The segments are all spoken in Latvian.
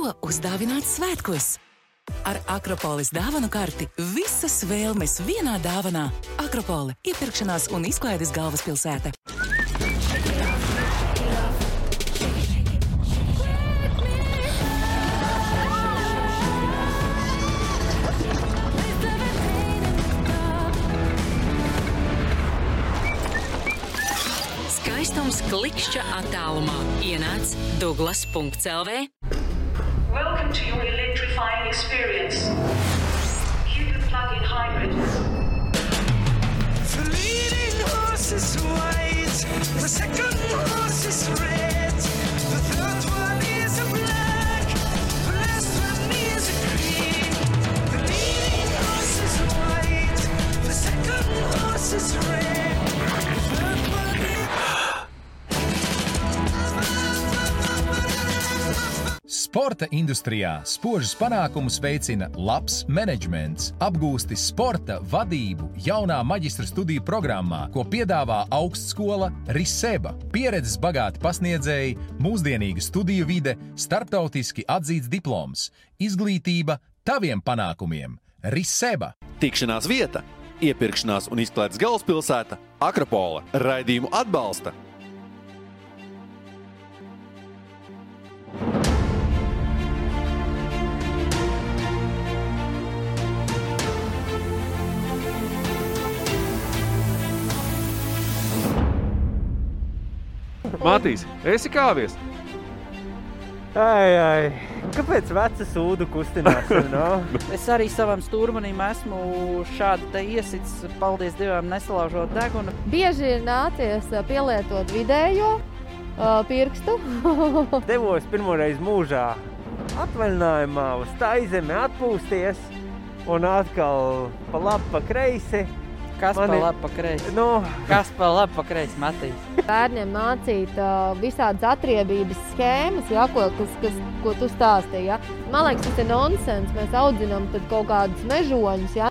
Ko uzdāvināt svētkos? Ar Akropolis dāvanu karti visas vēlmes vienā dāvanā. Akropoli – iepirkšanās un izklaides galvaspilsēta. Skaistums klikšķa attālumā. Ienāc Douglas.lv. Welcome to your electrifying experience. Cupid plug-in hybrid. The leading horse is white, the second horse is red, the third one is a black, the last one is a green. The leading horse is white, the second horse is red, the third one is... Sporta industrijā spožus panākumus veicina labs menedžments. Apgūsti sporta vadību jaunā maģistra studiju programmā, ko piedāvā augstskola Riseba. Pieredzes bagāti pasniedzēji, mūsdienīga studiju vide, starptautiski atzīts diploms. Izglītība taviem panākumiem. Riseba. Tikšanās vieta, iepirkšanās un izklaides galvaspilsēta Akropola. Raidījumu atbalsta Matīs, esi kāvies? Ai, kāpēc veca sūdu kustinās? No? Es arī savam stūrmanim esmu šādi te iesits, paldies Dievam, nesalaužot degunu. Bieži ir nācies pielietot vidējo pirkstu. Devos pirmoreiz mūžā atvaļinājumā uz Taizemi atpūsties un atkal pa labi, pa kreisi. Kas pa labi, pa kreisi? Kas pa labi, pa kreisi, Matīs? Bērniem mācīt visādas atriebības schēmas, ja, ko tu stāstīji. Ja. Man liekas, tas ir nonsens. Mēs audzinām tad kaut kādus mežoņus. Ja.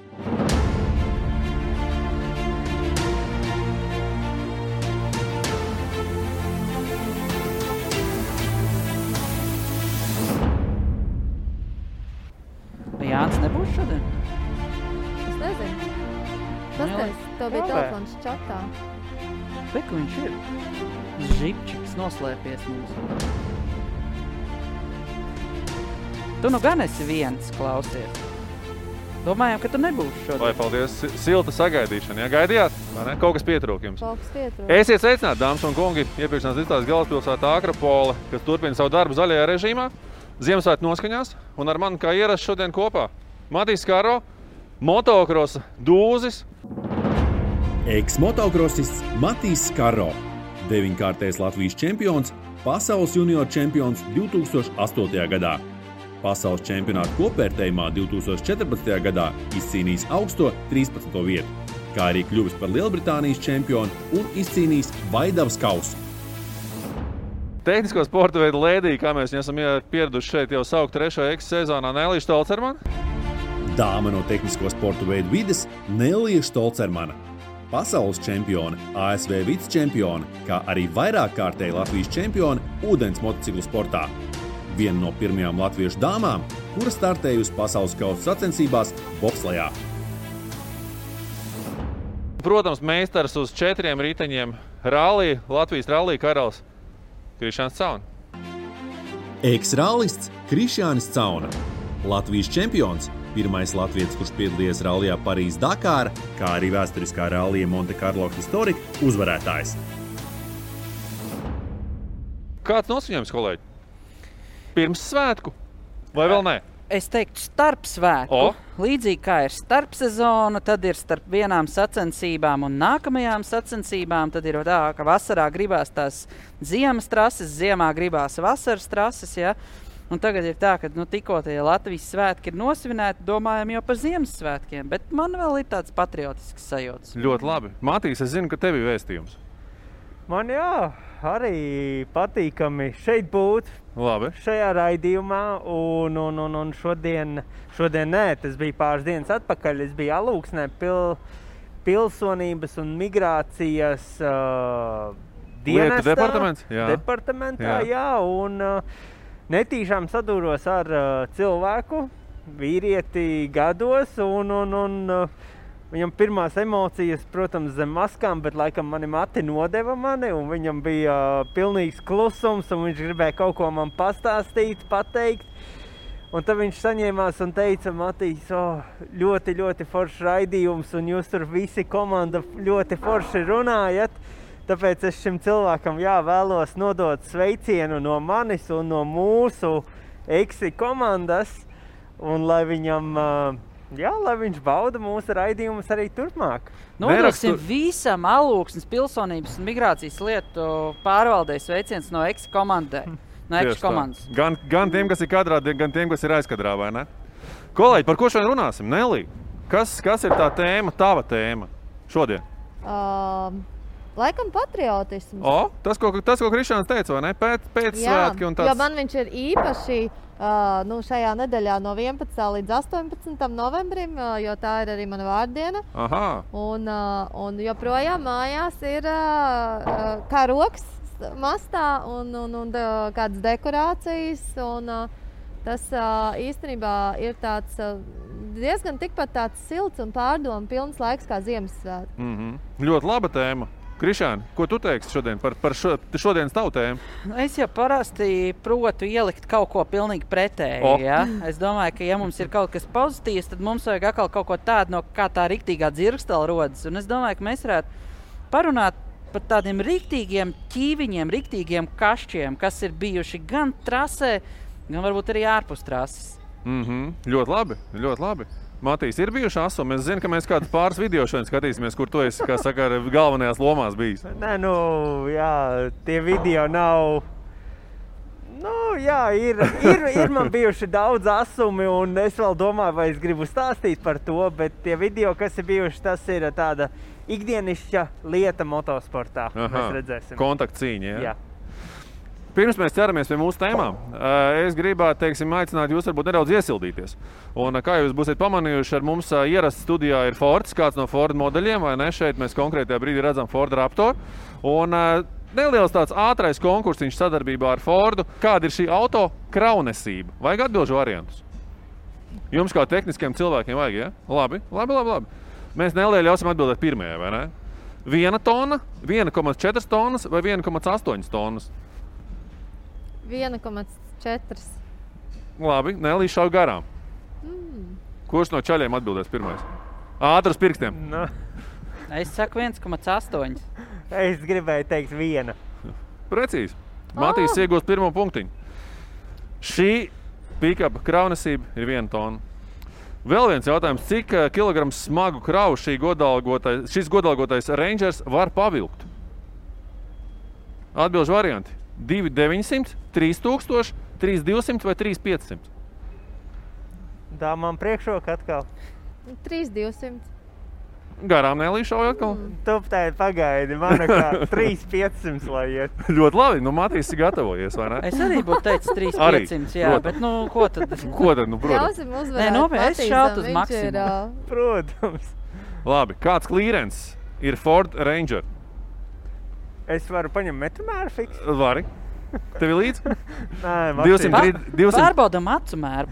Jānis nebūs šodien? Es nezinu. Pastāst, tev bija telefons čatā. Reku viņš ir. Žipčiks noslēpies mums. Tu nu gan esi viens, klausies. Domājām, ka tu nebūsi šodien. Lai paldies, silta sagaidīšana. Ja gaidījāt? Kaut kas pietrūk jums. Kaut kas pietrūk. Esiet sveicināti, dāmas un kungi, iepirkšanās izklaides galvaspilsētā Akropola, kas turpina savu darbu zaļajā režīmā, Ziemassvētku noskaņās, un ar mani kā ierasts šodien kopā Matīs Skaro, motokrosa dūzis. Eks-motokrosists Matīs Skaro, 9-kārtais Latvijas čempions, pasaules junior čempions 2008. gadā. Pasaules čempionāta kopvērtējumā 2014. gadā izcīnījis augsto 13. vietu, kā arī kļuvis par Lielbritānijas čempionu un izcīnījis Vaidavas kausu. Tehnisko sporta veidu lēdī, kā mēs esam pieraduši šeit jau saukt 3. Eks-sezonā, Nelija Štolcermana. Dāma no tehnisko sporta veidu vides Nelija Štolcermana. Pasaules čempione, ASV vicečempione, kā arī vairāk kārtēji Latvijas čempione ūdens motociklu sportā. Viena no pirmajām latviešu dāmām, kura startējusi pasaules kausa sacensībās bobslejā. Protams, meistars uz 4 riteņiem rallī, Latvijas rallī karalis Krišjāns Cauna. Eks-rallists Krišjānis Cauna. Latvijas čempions, pirmais latvietis, kurš piedalījies rallijā Parīz-Dakāra, kā arī vēsturiskā rallija Monte Carlo Historika uzvarētājs. Kāds nosviņojums, kolēģi? Pirms svētku? Vai vēl nē? Es teiktu starp svētku. Līdzīgi kā ir starp sezona, tad ir starp vienām sacensībām un nākamajām sacensībām. Tad ir tā, ka vasarā gribās tās ziemas trases, ziemā gribās vasaras trases, ja? Un tagad ir tā, ka tikko tie Latvijas svētki ir nosvinēti, domājam jau par Ziemassvētkiem, bet man vēl ir tāds patriotisks sajūts. Ļoti labi. Matīs, es zinu, ka tev ir vēstījums. Man arī patīkami šeit būt. Labi. Šajā raidījumā, un šodien nē, tas bija pāris dienas atpakaļ. Es biju Alūksnē pilsonības un migrācijas lietu departamentā, jā, un netīšām sadūros ar cilvēku, vīrieti gados, un viņam pirmās emocijas, protams, zem maskām, bet laikam mani mati nodeva mani, un viņam bija pilnīgs klusums, un viņš gribēja kaut ko man pastāstīt, pateikt. Un tad viņš saņēmās un teica, Matīs, ļoti, ļoti foršs raidījums, un jūs tur visi komanda ļoti forši runājat. Tāpēc es šim cilvēkam vēlos nodot sveicienu no manis un no mūsu Eksi komandas, un lai viņam, lai viņš bauda mūsu raidījumus arī turpmāk. Nodosim visam Alūksnes pilsonības un migrācijas lietu pārvaldēs sveiciens no Eksi komandai. No Ekšu komandas. Gan tiem, kas ir kadrā, gan tiem, kas ir aizkadrā, vai ne? Kolēģi, par ko šodien runāsim? Nelī, kas ir tā tēma, tava tēma šodien? Laikam patriotisms. Tas, ko Krišāns teica, vai ne? Pēc svētki un tāds. Jo man viņš ir īpaši šajā nedēļā no 11. līdz 18. novembrim, jo tā ir arī mana vārdiena. Aha. Un joprojām mājās ir karoks mastā un kādas dekorācijas, un tas īstenībā ir tāds diezgan tikpat tāds silts un pārdomu pilns laiks kā Ziemassvētki. Ļoti laba tēma. Krišāni, ko tu teiksi šodien par šodienas tavu tēmu? Es jau parasti protu ielikt kaut ko pilnīgi pretēji. Ja? Es domāju, ka ja mums ir kaut kas pozitīvs, tad mums vajag atkal kaut ko tādu, no kā tā riktīgā dzirkstela rodas. Un es domāju, ka mēs varētu parunāt par tādiem riktīgiem ķīviņiem, riktīgiem kašķiem, kas ir bijuši gan trasē, gan varbūt arī ārpus trases. Ļoti labi, ļoti labi. Matīs, ir bijuši asumi? Es zinu, ka mēs kādu pāris video šodien skatīsimies, kur tu esi, kā saka, galvenajās lomās bijis. Nē, tie video nav... Ir man bijuši daudz asumi, un es vēl domāju, vai es gribu stāstīt par to, bet tie video, kas ir bijuši, tas ir tāda ikdienišķa lieta motosportā. Mēs redzēsim. Kontaktcīņa, jā? Pirms mēs ķeramies pie mūsu tēmām, es gribētu, aicināt jūs varbūt nedaudz iesildīties. Un kā jūs būsiet pamanījuši, ar mums ierasts studijā ir Fords, kāds no Ford modeļiem, vai ne? Šeit mēs konkrētajā brīdī redzam Ford Raptor. Un neliels tāds ātrais konkursiņš sadarbībā ar Fordu. Kāda ir šī auto kraunesība? Vajag atbilžu variantus? Jums kā tehniskiem cilvēkiem vajag, ja? Labi. Mēs Nelija ļausim atbildēt pirmajai, vai ne? 1 tonna, 1,4 tonnas vai 1,8 tonnas? 1,4. Labi, Nelija šauj garām. Kurš no čaļiem atbildēs pirmais? Ātri uz pirkstiem. Es saku 1,8. Es gribēju teikt 1. Precīzi. Matīs iegūst pirmo punktiņu. Šī pick-up kraunesība ir 1 tonna. Vēl viens jautājums, cik kilograms smagu kravu šis godalgotais Rangers var pavilkt? Atbilžu varianti. 2,900, 3,000, 3,200 vai 3,500? Tā man priekšroka atkal. 3,200. Garām Nelija šauj atkal? Tuptēji pagaidi, man kā 3,500 lai iet. Ļoti labi, Matīs ir gatavojies, vai ne? Es arī būtu teicis 3,500, jā, bet ko tad? Protams. Ļausim uzvarēt es šautu uz maksimumu. Protams. Labi, kāds klīrens ir Ford Ranger? Es varu paņemt metromēru fiks? Vari. Tev ir līdz? Nē, 200... Pārbaudam acu mēru.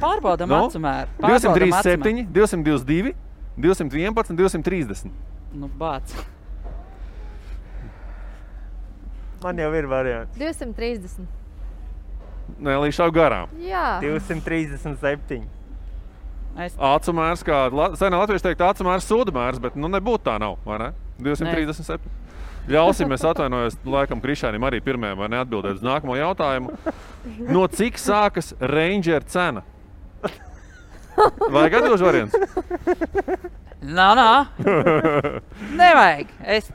237, 222, 211, 230. Bāc. Man jau ir variants. 230. Nelija šauj garām. Jā. 237. Acu mērs, kā senā latvieši teikt, acu mērs sūda mērs, bet nebūtu tā nav, vai ne? 237. Ļausim, es atvainojos, laikam Krišānim arī pirmajam, vai neatbildēt uz nākamo jautājumu. No cik sākas Ranger cena? Vajag atbilžu variants? Nevajag. Es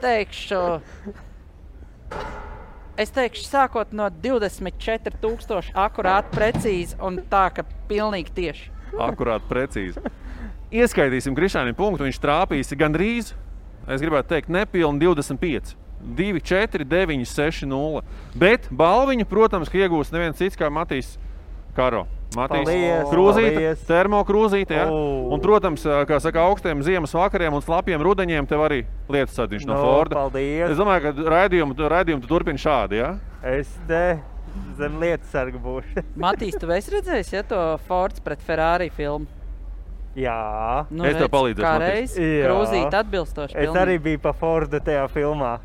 teikšu sākot no 24,000 akurāti precīzi un tā, ka pilnīgi tieši. Akurāti precīzi. Ieskaitīsim Krišānim punktu, viņš trāpīsi gandrīz, es gribētu teikt, nepilni 25. 2, 4, 9, 6, 0. Bet balviņu, protams, ka iegūs neviens cits kā Matīs Karo. Matīs krūzīte, termokrūzīte, ja? Un, protams, kā saka, augstiem ziemas vakariem un slapiem rudeņiem tev arī lietusadiņš no Forda. Paldies. Es domāju, ka raidījumu tu turpini šādi, ja? Es te zem lietu sarga būšu. Matīs, tu esi redzējis, ja to Fords pret Ferrari filmu? Jā. Nu, Es tev redz, palīdzēšu, kā Matīs. reiz Jā. krūzīt atbilstoši Es arī biju pa Fordu tajā filmā.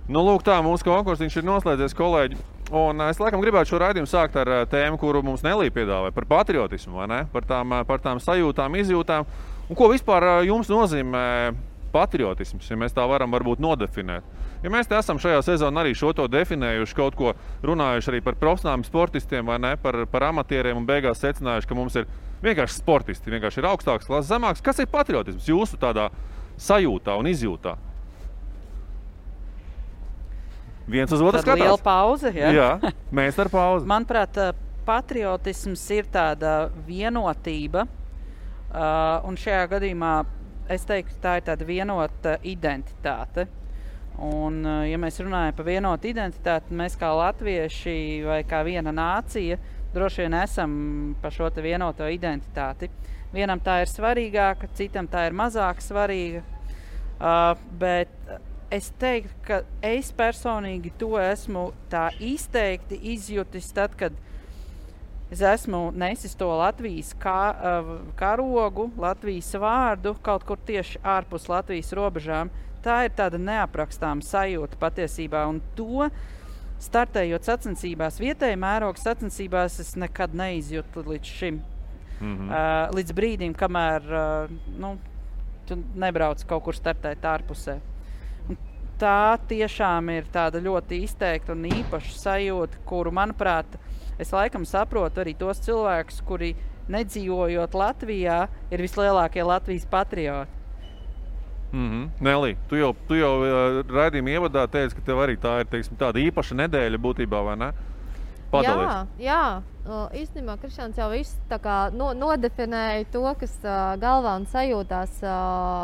Nu, lūk, tā mūsu konkursiņš ir noslēdzies, kolēģi. Un es laikam gribētu šo raidījumu sākt ar tēmu, kuru mums Nelija piedāvāja, par patriotismu, vai ne? Par tām sajūtām, izjūtām. Un ko vispār jums nozīmē patriotisms, ja mēs tā varam varbūt nodefinēt? Ja mēs te esam šajā sezonā arī šo to definējuši, kaut ko runājuši arī par profesionāliem sportistiem, vai ne? Par amatieriem un beigās secinājuši, ka mums ir vienkārši sportisti, vienkārši ir augstāks klases, zemāks. Kas ir patriotisms jūsu tādā sajūtā un izjūtā? Viens uz otru skatās. Liela pauze, ja? Jā, mēs ar pauzi. Manuprāt, patriotisms ir tāda vienotība, un šajā gadījumā es teiktu, tā ir tāda vienota identitāte. Un, ja mēs runājam par vienotu identitāti, mēs kā latvieši vai kā viena nācija droši vien esam par šo te vienoto identitāti. Vienam tā ir svarīgāka, citam tā ir mazāk svarīga, bet es teiktu, ka es personīgi to esmu tā izteikti izjutis tad, kad es esmu nesis to Latvijas karogu, Latvijas vārdu kaut kur tieši ārpus Latvijas robežām. Tā ir tāda neaprakstāma sajūta patiesībā, un to startējot sacensībās, vietēji mēroga sacensībās, es nekad neizjūtu līdz šim. Līdz brīdim, kamēr tu nebrauc kaut kur startēt ārpusē. Tā tiešām ir tāda ļoti izteikta un īpaša sajūta, kuru, manuprāt, es laikam saprotu arī tos cilvēkus, kuri nedzīvojot Latvijā, ir vislielākie Latvijas patrioti. Nelī, tu jau raidījuma ievadā teici, ka tev arī tā ir, teiksim, tāda īpaša nedēļa būtībā, vai ne? Padalies. Jā. Īstenībā Krišāns jau viss tā kā nodefinēja to, kas galvā un sajūtās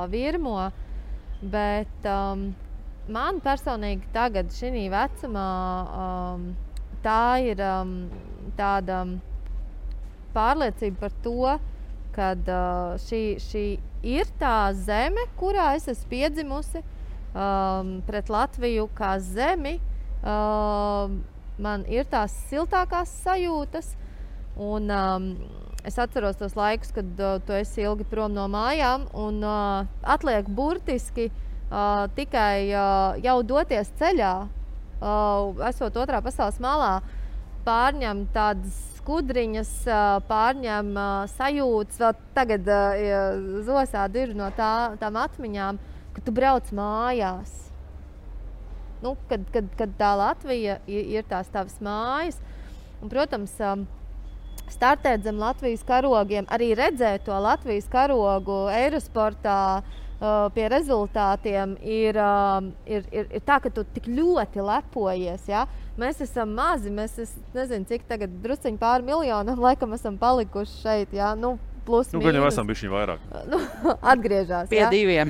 virmo, bet man personīgi tagad šī vecumā tā ir tāda pārliecība par to, kad šī ir tā zeme, kurā es esmu piedzimusi, pret Latviju kā zemi. Man ir tās siltākās sajūtas, un es atceros tos laikus, kad tu esi ilgi prom no mājām, un atliek burtiski tikai jau doties ceļā, esot otrā pasaules malā, pārņem tādas skudriņas, pārņem sajūtas, vēl tagad zosādi ir no tām atmiņām, ka tu brauc mājās. Kad tā Latvija ir tās tavas mājas. Un, protams, startēt zem Latvijas karogiem, arī redzēt to Latvijas karogu Eirosportā pie rezultātiem ir tā, ka tu tik ļoti lepojies. Ja? Mēs esam mazi, es nezinu, cik tagad drusciņi pāri miljonam laikam esam palikuši šeit. Ja? Plus mīnus. Gan jau esam bišķiņ vairāk. Atgriežās. Pie diviem.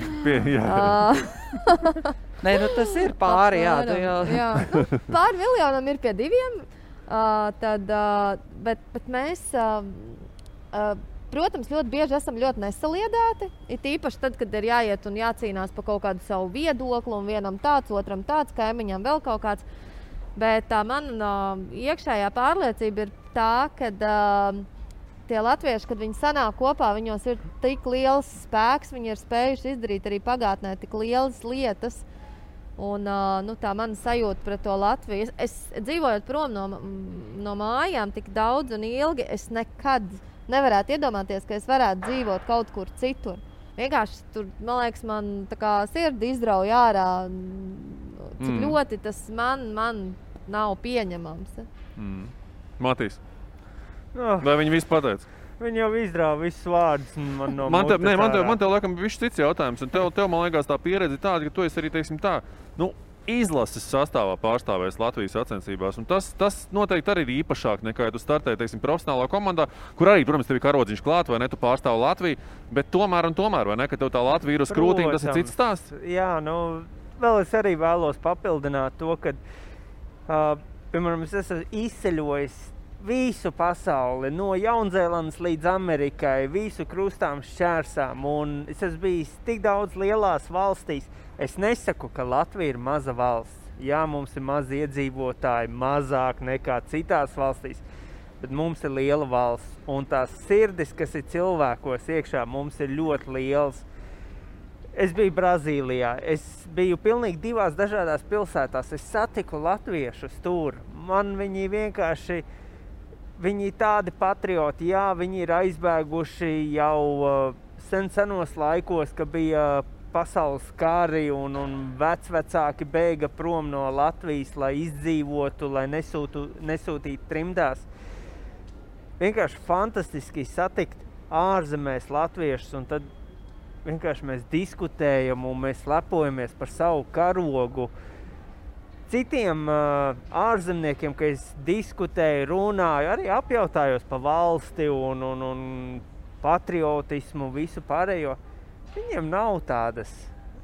Nē, tas ir pāri, jā. Pāri miljonam ir pie diviem, bet mēs, protams, ļoti bieži esam ļoti nesaliedēti. Ir īpaši tad, kad ir jāiet un jācīnās par kaut kādu savu viedokli, un vienam tāds, otram tāds, kaimiņam vēl kaut kāds. Bet tā mana iekšējā pārliecība ir tā, ka tie latvieši, kad viņi sanāk kopā, viņos ir tik liels spēks, viņi ir spējuši izdarīt arī pagātnē tik lielas lietas. Un tā mana sajūta pret to Latviju. Es dzīvojot prom no mājām tik daudz un ilgi, es nekad nevarētu iedomāties, ka es varētu dzīvot kaut kur citur. Vienkārši tur, man liekas, man tā kā sirdi izrauj ārā, cik ļoti tas man nav pieņemams. Matīs, vai viņi visu pateica? Viņi jau izrāva visus vārdus no mutes ārā. Man tev laikam višķi cits jautājums, un tev man liekas tā pieredze tāda, ka tu esi arī, teiksim tā, izlases sastāvā pārstāvēs Latvijas sacensībās, un tas noteikti arī ir īpašāk nekā, ja tu startēji, teiksim, profesionālā komandā, kur arī, protams, tev ir karodziņš klāt, vai ne, tu pārstāvi Latviju, bet tomēr, vai ne, ka tev tā Latvija ir uz krūtīm, tas ir cits stāsts? Jā, vēl es arī vēlos papildināt to, ka, piemēram, es esmu izceļojis visu pasauli, no Jaunzēlandes līdz Amerikai, visu krustām šķērsām, un es esmu bijis tik daudz lielās valstīs. Es nesaku, ka Latvija ir maza valsts. Jā, mums ir mazi iedzīvotāji, mazāk nekā citās valstīs, bet mums ir liela valsts. Un tās sirdis, kas ir cilvēkos iekšā, mums ir ļoti liels. Es biju Brazīlijā, es biju pilnīgi 2 dažādās pilsētās. Es satiku latviešus tur. Man viņi vienkārši, viņi tādi patrioti, jā, viņi ir aizbēguši jau senos laikos, ka bija pasaules kari un vecvecāki bēga prom no Latvijas, lai izdzīvotu, lai nesūtītu trimdās. Vienkārši fantastiski satikt ārzemēs latviešus, un tad vienkārši mēs diskutējam un mēs lepojamies par savu karogu. Citiem ārzemniekiem, ka es diskutēju, runāju, arī apjautājos pa valsti un patriotismu, visu pārējo. Viņiem nav tādas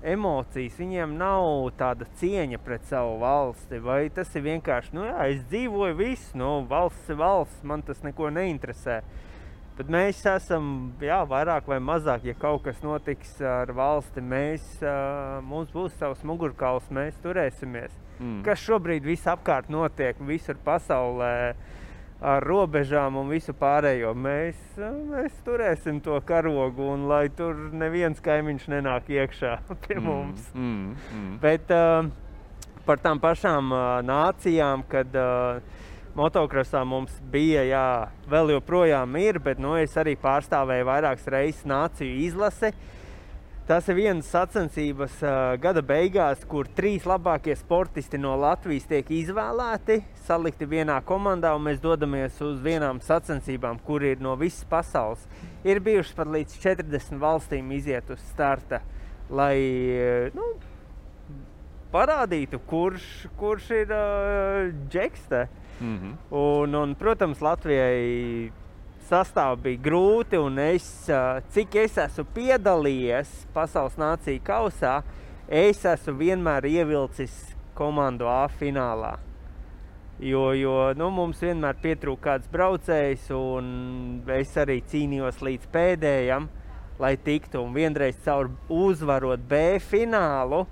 emocijas, viņiem nav tāda cieņa pret savu valsti, vai tas ir vienkārši, nu jā, es dzīvoju visu, nu valsts ir valsts, man tas neko neinteresē. Bet mēs esam, jā, vairāk vai mazāk, ja kaut kas notiks ar valsti, mums būs savs mugurkauls, mēs turēsimies. Kas šobrīd visapkārt notiek, visur pasaulē, ar robežām un visu pārējo. Mēs turēsim to karogu, un lai tur neviens kaimiņš nenāk iekšā pie mums. Bet par tām pašām nācijām, kad motokrosā mums bija, jā, vēl joprojām ir, bet es arī pārstāvēju vairākas reizes nāciju izlase. Tas ir vienas sacensības gada beigās, kur 3 labākie sportisti no Latvijas tiek izvēlēti, salikti vienā komandā, un mēs dodamies uz vienām sacensībām, kur ir no visas pasaules. Ir bijušas pat līdz 40 valstīm iziet uz starta, lai parādītu, kurš ir džekste. Un, protams, Latvijai sastāv bija grūti, un cik es esmu piedalījies pasaules nāciju kausā, es esmu vienmēr ievilcis komandu A finālā. Jo mums vienmēr pietrūk kāds braucējs, un es arī cīnījos līdz pēdējam, lai tiktu. Un vienreiz caur uzvarot B finālu,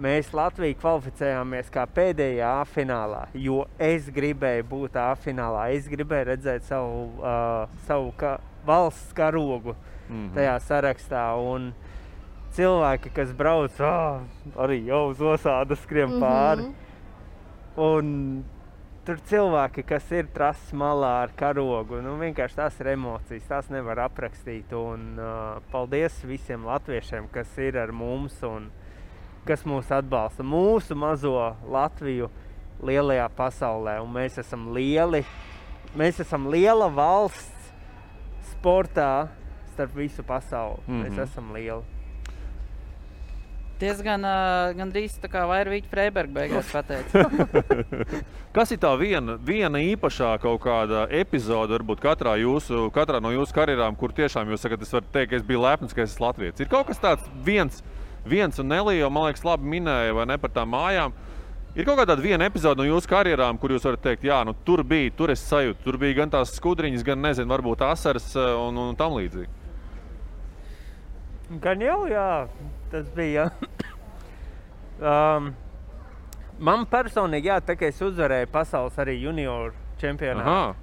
mēs Latviju kvalificējāmies kā pēdējā A finālā, jo es gribēju būt A finālā. Es gribēju redzēt savu valsts karogu tajā sarakstā. Un cilvēki, kas brauc, arī jau uz osādas skrien pāri. Un tur cilvēki, kas ir trases malā ar karogu, vienkārši tās ir emocijas, tās nevar aprakstīt. Un paldies visiem latviešiem, kas ir ar mums un kas mūs atbalsta, mūsu mazo Latviju lielajā pasaulē. Un mēs esam liela valsts sportā starp visu pasauli. Mēs esam lieli. Diezgan gandrīz tā kā Vairvīķa Freiberga beigās pateica. Kas ir tā viena īpašā kaut kāda epizode, varbūt katrā no jūsu karjerām, kur tiešām jūs sakat, es varu teikt, ka es biju lepns, ka es esmu latvietis. Ir kaut kas tāds viens un Nelija, man liekas, labi minēja, vai ne, par tām mājām. Ir kaut kāda viena epizode no jūsu karjerām, kur jūs varat teikt, jā, tur es sajūtu, tur bija gan tās skudriņas, gan, nezinu, varbūt asaras un tam līdzīgi. Gan jau, jā, tas bija. Man personīgi, jā, tā kā es uzvarēju pasaules arī junioru čempionātu.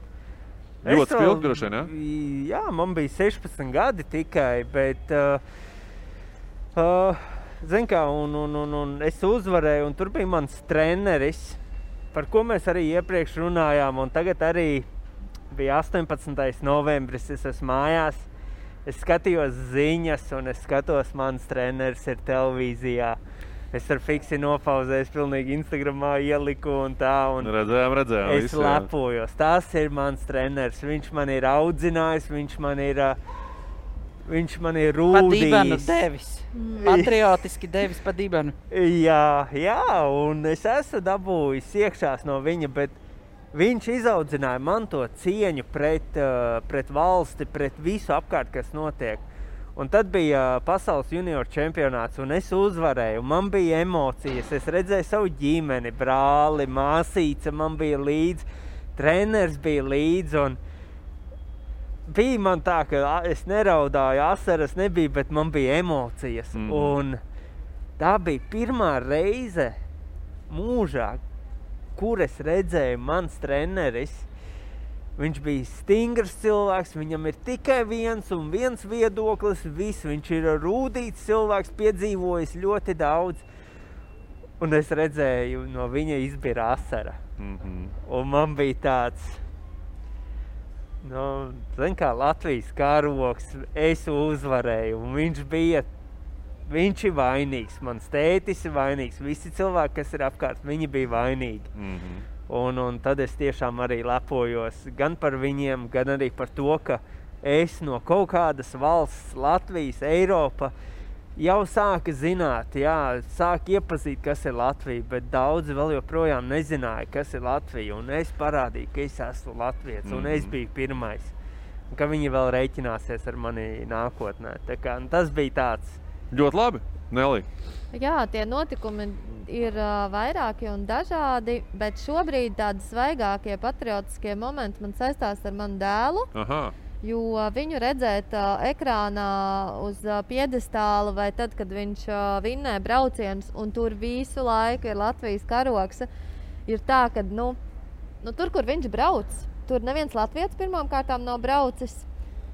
Ļoti spilgt droši vien, jā? Jā, man bija 16 gadi tikai, bet zin kā, un es uzvarēju, un tur bija mans treneris, par ko mēs arī iepriekš runājām, un tagad arī bija 18. novembris, es esmu mājās, es skatījos ziņas, un es skatos, mans treneris ir televīzijā. Es ar fiksi nopauzēju, pilnīgi Instagramā ieliku un tā, un redzējām, es lepojos. Tas ir mans treneris, viņš man ir audzinājis, viņš man ir rūdījis. Pa dibenu devis. Patriotiski devis pa dibenu. Jā, un es esmu dabūjis iekšās no viņa, bet viņš izaudzināja man to cieņu pret valsti, pret visu apkārt, kas notiek. Un tad bija pasaules junioru čempionāts, un es uzvarēju. Man bija emocijas, es redzēju savu ģimeni, brāli, māsīca man bija līdz, treneris bija līdz, un bija man tā, ka es neraudāju, asaras nebija, bet man bija emocijas. Un tā bija pirmā reize mūžā, kur es redzēju mans treneris, viņš bija stingrs cilvēks, viņam ir tikai viens un viens viedoklis, viss, viņš ir rūdīts cilvēks, piedzīvojis ļoti daudz. Un es redzēju, no viņa izbira asara. Un man bija tāds, zin kā Latvijas karogs, es uzvarēju, un viņš ir vainīgs, mans tētis ir vainīgs, visi cilvēki, kas ir apkārt, viņi bija vainīgi. Un tad es tiešām arī lepojos gan par viņiem, gan arī par to, ka es no kaut kādas valsts, Latvijas, Eiropa, jau sāka zināt, sāka iepazīt, kas ir Latvija, bet daudzi vēl joprojām nezināja, kas ir Latvija, un es parādīju, ka es esmu latvietis, un es biju pirmais, un ka viņi vēl reiķināsies ar mani nākotnē. Tā kā, tas bija tāds. Ļoti labi, Nelī. Jā, tie notikumi ir vairāki un dažādi, bet šobrīd tādi svaigākie patriotiskie momenti man saistās ar manu dēlu. Aha. Jo viņu redzēt ekrānā uz piedestāla vai tad, kad viņš vinnē braucienus un tur visu laiku ir Latvijas karogs, ir tā, ka tur, kur viņš brauc, tur neviens latvietis pirmām kārtām nav braucis.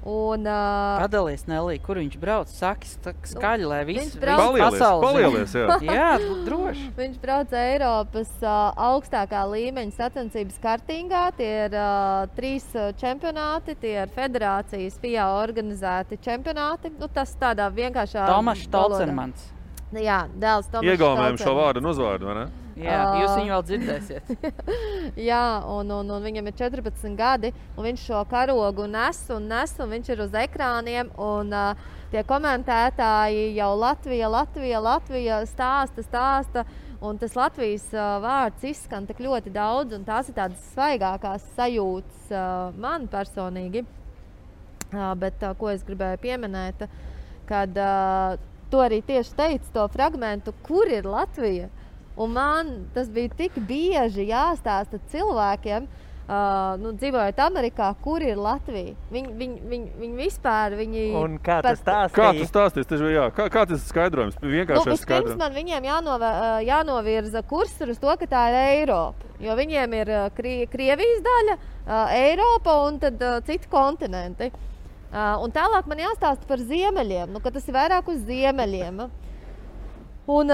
Padalies, Nelī, kur viņš brauc? Saki skaļi, lai viss Palielies, jā. Jā, droši. Viņš brauc Eiropas augstākā līmeņa sacensības kartingā. Tie ir 3 čempionāti, tie ir federācijas FIA organizēti čempionāti. Tas tādā vienkāršā Tomašs Tolcermans. Jā, dēls Tomašs Tolcermans. Iegaumējam šo vārdu un uzvārdu, vai ne? Jā, jūs viņu vēl dzirdēsiet. Jā, un viņam ir 14 gadi, un viņš šo karogu nes, un viņš ir uz ekrāniem, un tie komentētāji jau Latvija stāsta, un tas Latvijas vārds izskan tik ļoti daudz, un tās ir tādas svaigākās sajūtas man personīgi. Bet ko es gribēju pieminēt, kad to arī tieši teicu, to fragmentu, kur ir Latvija. Un man tas bija tik bieži jāstāsta cilvēkiem, dzīvojot Amerikā, kur ir Latvija. Viņi vispār, Un kā tas stāstīja? Kā tas stāstīja? Kā tas skaidrojums? Vienkāršais skaidrojums. Vispirms man viņiem jānovirza kursor uz to, ka tā ir Eiropa. Jo viņiem ir Krievijas daļa, Eiropa un tad citi kontinenti. Un tālāk man jāstāsta par ziemeļiem, ka tas ir vairāk uz ziemeļiem. Un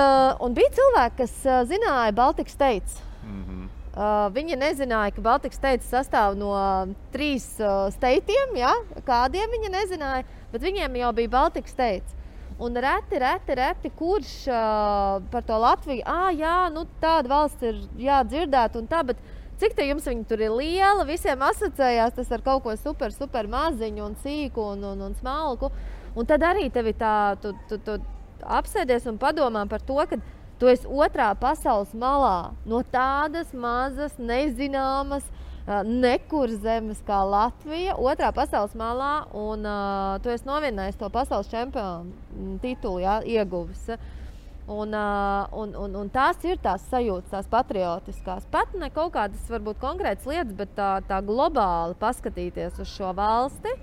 bija cilvēki, kas zināja Baltic States. Viņi nezināja, ka Baltic States sastāv no 3 steitiem, kādiem viņi nezināja, bet viņiem jau bija Baltic States. Un reti, kurš par to Latviju, tāda valsts ir jādzirdēt un tā, bet cik te jums viņi tur ir liela, visiem asociējās tas ar kaut ko super maziņu un sīku un smalku. Un tad arī tevi tā, tu apsēdies un padomā par to, ka tu esi otrā pasaules malā no tādas mazas, nezināmas, nekur zemes kā Latvija, otrā pasaules malā, un tu esi novinnējis to pasaules čempionu titulu, ieguvis. Un tās ir tās sajūtas, tās patriotiskās. Pat ne kaut kādas varbūt konkrētas lietas, bet tā globāli paskatīties uz šo valsti,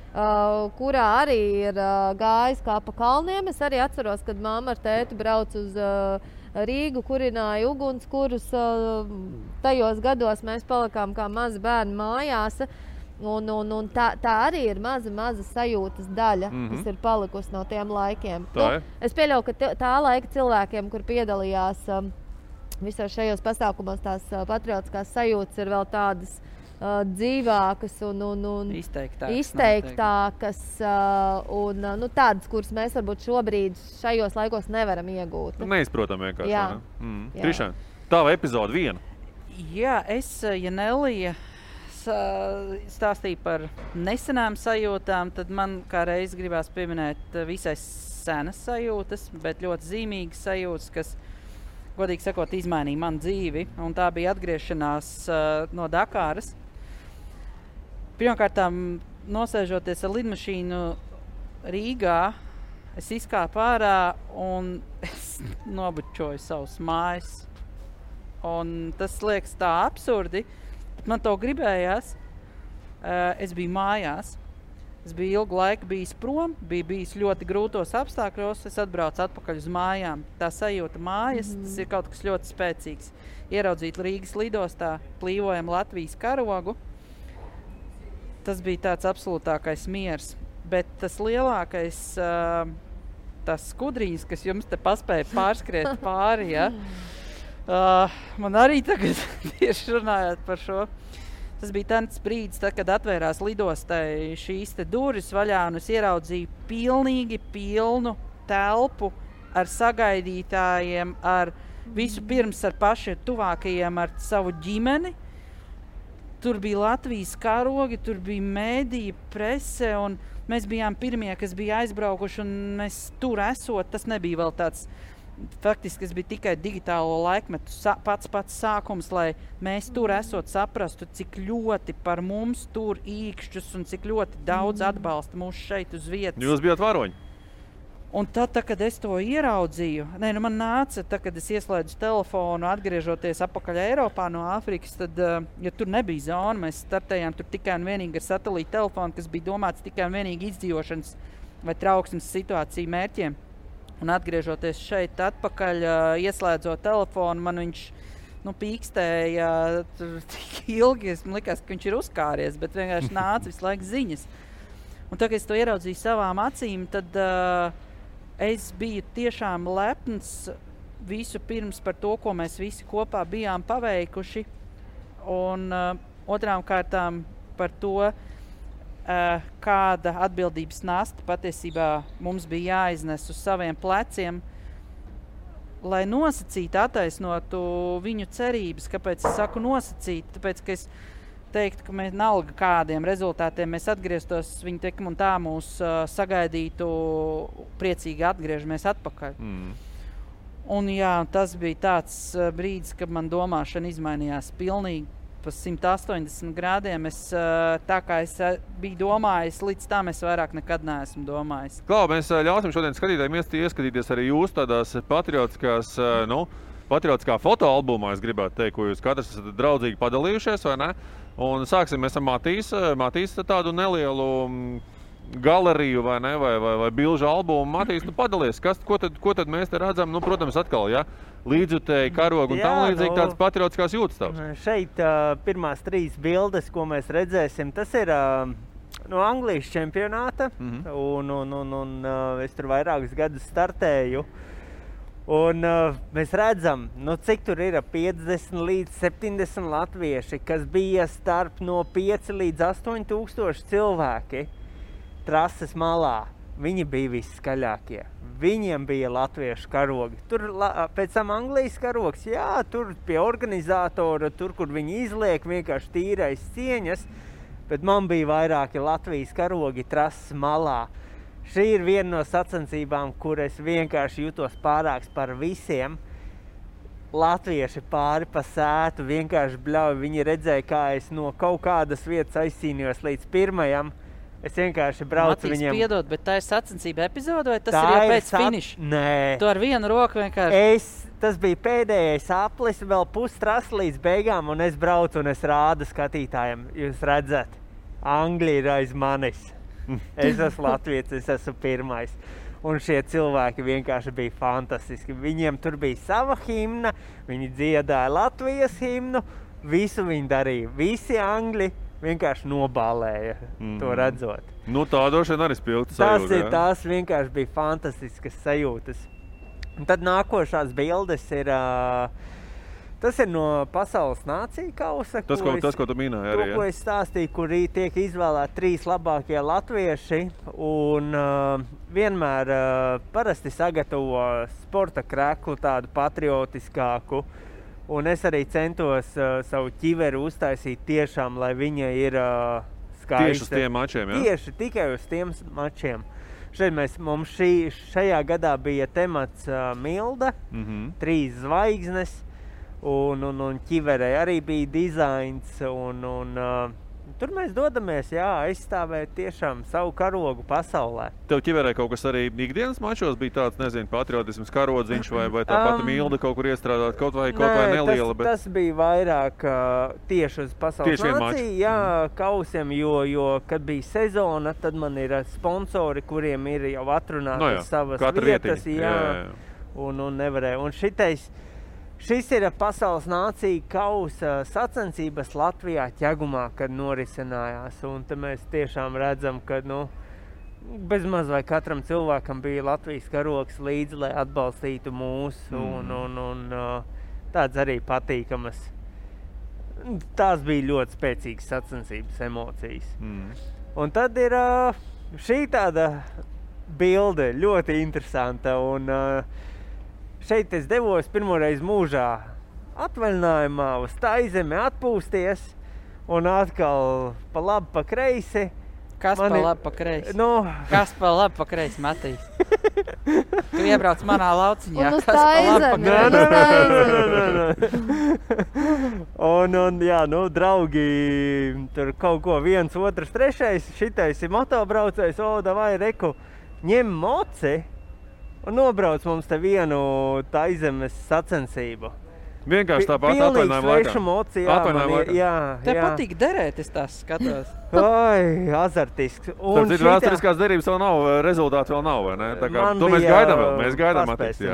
kurā arī ir gājis kā pa kalniem. Es arī atceros, kad mamma ar tēti brauc uz Rīgu, kurināja ugunskurus. Tajos gados mēs palikām kā mazi bērni mājās. Un tā arī ir maza sajūtas daļa, kas ir palikusi no tiem laikiem. Es pieļauju, ka tā laika cilvēkiem, kur piedalījās visos šajos pasākumos, tās patriotiskās sajūtas ir vēl tādas dzīvākas un izteiktākas un tādas, kuras mēs varbūt šobrīd šajos laikos nevaram iegūt. Neizprotam vienkārši. Krišān, tava epizode 1. Jā, ja Nelija stāstīja par nesenām sajūtām, tad man kā reiz gribās pieminēt visai senas sajūtas, bet ļoti zīmīgas sajūtas, kas, godīgi sakot, izmainīja manu dzīvi. Un tā bija atgriešanās no Dakāras. Pirmkārtām, nosēžoties ar lidmašīnu Rīgā, es izkāpu ārā un es nobučoju savus mājas. Un tas liekas tā absurdi, bet man to gribējās. Es biju mājās, Es biju ilgu laiku bijis prom, biju bijis ļoti grūtos apstākļos, es atbraucu atpakaļ uz mājām. Tā sajūta mājas, tas ir kaut kas ļoti spēcīgs. Ieraudzīt Rīgas lidostā plīvojam Latvijas karogu, tas bija tāds absolūtākais miers. Bet tas lielākais, tas skudrīs, kas jums te paspēja pārskriet pāri, ja? Man arī tagad tieši runājot par šo. Tas bija tāds brīdis, tad, kad atvērās lidostai šīs te durvis vaļā, un es ieraudzīju pilnīgi pilnu telpu ar sagaidītājiem, ar visu pirms ar pašiem tuvākajiem, ar savu ģimeni. Tur bija Latvijas karogi, tur bija mēdīja, prese, un mēs bijām pirmie, kas bija aizbraukuši, un mēs tur esot, tas nebija vēl tāds. Faktiski tas bija tikai digitālo laikmetu pats sākums, lai mēs tur esot saprastu, cik ļoti par mums tur īkšķus un cik ļoti daudz atbalsta mūs šeit uz vietas. Jūs bijāt varoņi? Un tad, kad es to ieraudzīju, man nāca, kad es ieslēdzu telefonu, atgriežoties apakaļ Eiropā no Āfrikas, tad, ja tur nebija zona, mēs startējām tur tikai un vienīgi ar satelīta telefonu, kas bija domāts tikai un vienīgi izdzīvošanas vai trauksmes situāciju mērķiem. Un atgriežoties šeit atpakaļ, ieslēdzot telefonu, man viņš pīkstēja tik ilgi, man likās, ka viņš ir uzkāries, bet vienkārši nāca visu laiku ziņas. Un tad, kad es to ieraudzīju savām acīm, tad es biju tiešām lepns visu pirms par to, ko mēs visi kopā bijām paveikuši. Un otrām kārtām par to, kāda atbildības nasta patiesībā mums bija jāiznes uz saviem pleciem, lai nosacītu, attaisnotu viņu cerības. Kāpēc es saku nosacīt? Tāpēc, ka es teiktu, ka mēs nalga kādiem rezultātiem mēs atgrieztos, viņi tik un tā mūs sagaidītu, priecīgi atgriežamies atpakaļ. Un jā, tas bija tāds brīdis, kad man domāšana izmainījās pilnīgi pa 180 grādiem. Tā kā es biju domājis, līdz tam es vairāk nekad neesmu domājis. Klau, mēs ļausim šodien skatītājiem ieskatīties arī jūs tādās patriotiskā fotoalbumā, es gribētu teikt, ko jūs katrs esat draudzīgi padalījušies, vai ne? Un sāksim mēs ar Matīs tādu nelielu galeriju, vai ne, vai bilžu albumu. Matīs, padalies, ko tad mēs te redzam? Protams, atkal, ja? Līdzjutēji, karogu un tam līdzīgi tādas patriotiskās jūtas tavs. Šeit pirmās 3 bildes, ko mēs redzēsim, tas ir no Anglijas čempionāta, un es tur vairākus gadus startēju. Un mēs redzam, cik tur ir 50 līdz 70 latvieši, kas bija starp no 5 līdz 8 tūkstoši cilvēki trases malā. Viņi bija visskaļākie. Viņiem bija latviešu karogi. Tur pēc tam Anglijas karogs, jā, tur pie organizatora, tur, kur viņi izliek, vienkārši tīrais cieņas, bet man bija vairāki Latvijas karogi trases malā. Šī ir viena no sacensībām, kur es vienkārši jutos pārāks par visiem. Latvieši pāri pa sētu vienkārši bļauj. Viņi redzēja, kā es no kaut kādas vietas aizcīnījos līdz pirmajam. Es vienkārši braucu Matīs, viņiem. Piedod, bet tā ir sacensība epizode, vai tas ir jau pēc finiša? Nē. Tu ar vienu roku vienkārši... Tas bija pēdējais aplis, vēl pustrasa līdz beigām, un es braucu un es rādu skatītājiem. Jūs redzat, Anglija ir aiz manis. Es esmu latvietis, es esmu pirmais. Un šie cilvēki vienkārši bija fantastiski. Viņiem tur bija sava himna, viņi dziedāja Latvijas himnu, visu viņi darīja. Visi angļi vienkārši nobālēja to redzot. Tā droši vien arī spilgta sajūta. Tās vienkārši bija fantastiskas sajūtas. Un tad nākošās bildes ir... Tas ir no Pasaules nāciju kausa. Tas, ko tu minēji arī. Ko es stāstīju, kur tiek izvēlēti 3 labākie latvieši. Un vienmēr parasti sagatavo sporta kreklu, tādu patriotiskāku. Un es arī centos savu ķiveri uztaisīt tiešām, lai viņa ir skaista. Tieši uz tiem mačiem, jā? Tieši tikai uz tiem mačiem. Šeit mums šajā gadā bija temats Milda, 3 zvaigznes, un ķiverei arī bija dizains, un Tur mēs dodamies, aizstāvēt tiešām savu karogu pasaulē. Tev ķiverē kaut kas arī ikdienas mačos bija tāds, nezinu, patriotisms karodziņš vai tā pati Milda kaut kur iestrādāt, kaut vai neliela. Tas bija vairāk tieši uz pasaules nāciju, kausiem, jo, kad bija sezona, tad man ir sponsori, kuriem ir jau atrunātas savas vietas, un nevarēja. Un šis ir pasaules nācija kausa sacensības Latvijā Ķegumā, kad norisinājās. Un te mēs tiešām redzam, ka bezmaz vai katram cilvēkam bija Latvijas karogs līdzi, lai atbalstītu mūs. Un tāds arī patīkamas. Tās bija ļoti spēcīgas sacensības emocijas. Un tad ir šī tāda bilde, ļoti interesanta. Un šeit es devos pirmoreiz mūžā atvaļinājumā uz Taizemi atpūsties un atkal pa labi, pa kreisi. Kas pa labi, pa kreisi? Kas pa labi, pa kreisi, Matīs? Tu iebrauc manā lauciņā. Un uz Taizemi. Un draugi, tur kaut ko viens, otrs, trešais, šitais ir motobraucējs, davai, reku, ņem moci. Un nobrauc mums te vienu Taizemes sacensību. Vienkārši tāpat atvaļinājuma laikā. Tev patīk derēt, es tās skatos. Azartisks. Vēsturiskās derības vēl nav, rezultāti vēl nav, vai ne? Tā kā to mēs gaidām vēl, mēs gaidām attīstīt.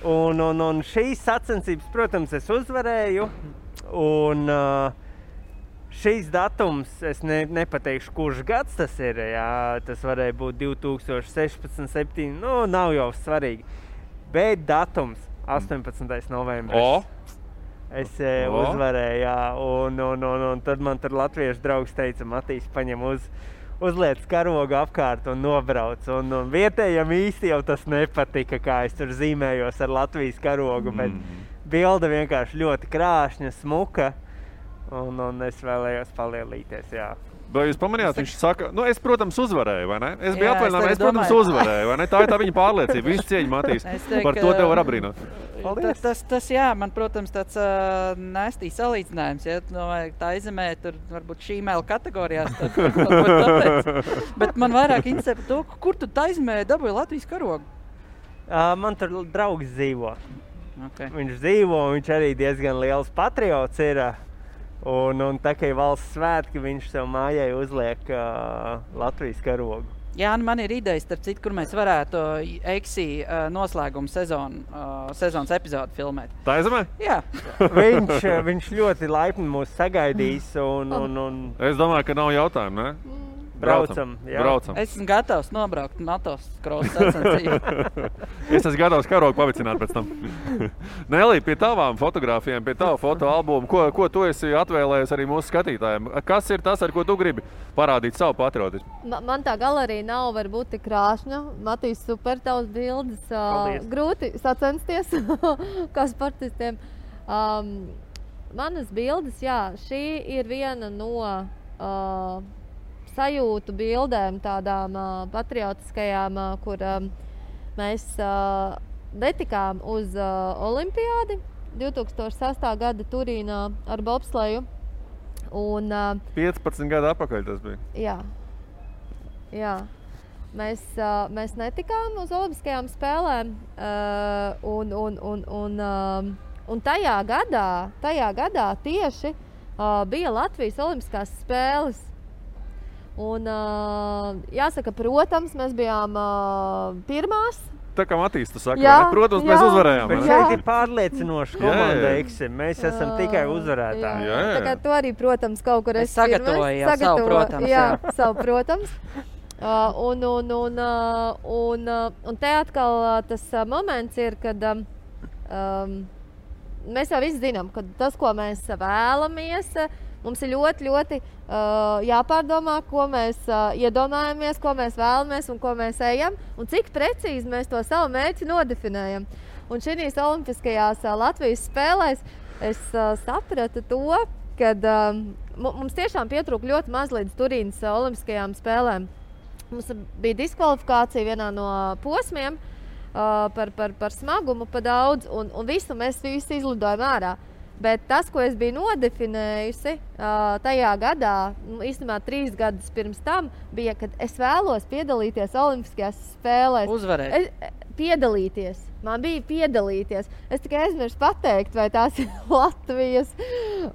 Un šīs sacensības, protams, es uzvarēju. Un šīs datums, es nepateikšu, kurš gads tas ir, tas varēja būt 2016, 2017, nav jau svarīgi. Bet datums, 18. novembris. Es uzvarēju, un tad man tur latviešu draugs teica, Matīs, paņem uzliec karogu apkārt un nobrauc. Un vietējiem īsti jau tas nepatika, kā es tur zīmējos ar Latvijas karogu, bet bilde vienkārši ļoti krāšņa, smuka. Un es vēlējos palielīties, Vai jūs pamanījāt, viņš saka, es, protams, uzvarēju, vai ne? Es biju atvaļinājumā, es, protams, uzvarēju, vai ne? Tā ir tā viņa pārliecība, visu cieņu, Matīs. Par to tev var apbrīnot. Tas, man, protams, tāds nestīs salīdzinājums, Taizemē, tur varbūt šīmēla kategorijās, bet man vairāk interesē par to, kur tu Taizemē dabūji Latvijas karogu? Man tur draugs dzīvo. Viņš dzīvo, viņš arī diezgan liels patriots ir. Un tā kā ir valsts svētki, viņš sev mājai uzliek Latvijas karogu. Jā, man ir idejas, starp citu, kur mēs varētu Eiksi noslēgumu sezonas epizodu filmēt. Taizemē? Jā. Viņš ļoti laipni mūs sagaidīs. Es domāju, ka nav jautājumu, ne? Braucam. Es esmu gatavs nobraukt motocross sacensību. Es esmu gatavs karogu pavicināt pēc tam. Nelī, pie tavām fotogrāfijām, pie tava fotoalbumu, ko tu esi atvēlējis arī mūsu skatītājiem? Kas ir tas, ar ko tu gribi parādīt savu patriotismu? Man tā galerija nav varbūt tik krāšņa. Matīs, super tavs bildes. Grūti sacensties kā sportistiem. Manas bildes, šī ir viena no sajūtu bildēm, tādām patriotiskajām, kur mēs netikām uz olimpiādi 2006. gada Turīnā ar bobsleju. 15 gadu atpakaļ tas bija. Jā. Mēs netikām uz olimpiskajām spēlēm, un tajā gadā tieši bija Latvijas olimpiskās spēles. Un jāsaka, protams, mēs bijām pirmās. Tā kā Matīs, tu saki, protams, mēs uzvarējām. Bet šeit ir pārliecinoši komanda Eiksim. Mēs esam tikai uzvarētāji. Tā kā tu arī, protams, kaut kur esi sagatavoji savu protams. Jā, savu protams. Un te atkal tas moments ir, kad mēs jau visi zinām, ka tas, ko mēs vēlamies, mums ir ļoti, ļoti jāpārdomā, ko mēs iedomājamies, ko mēs vēlamies un ko mēs ejam, un cik precīzi mēs to savu mērķi nodefinējam. Un šīs olimpiskajās Latvijas spēlēs es sapratu to, ka mums tiešām pietrūka ļoti maz līdz Turīnas olimpiskajām spēlēm. Mums bija diskvalifikācija vienā no posmiem par smagumu, pa daudz, un mēs visi izlidojam ārā. Bet tas, ko es biju nodefinējusi tajā gadā, īstenībā 3 gadus pirms tam, bija, kad es vēlos piedalīties Olimpiskajās spēlēs. Uzvarēt. Piedalīties. Man bija piedalīties. Es tikai aizmirsu pateikt, vai tās ir Latvijas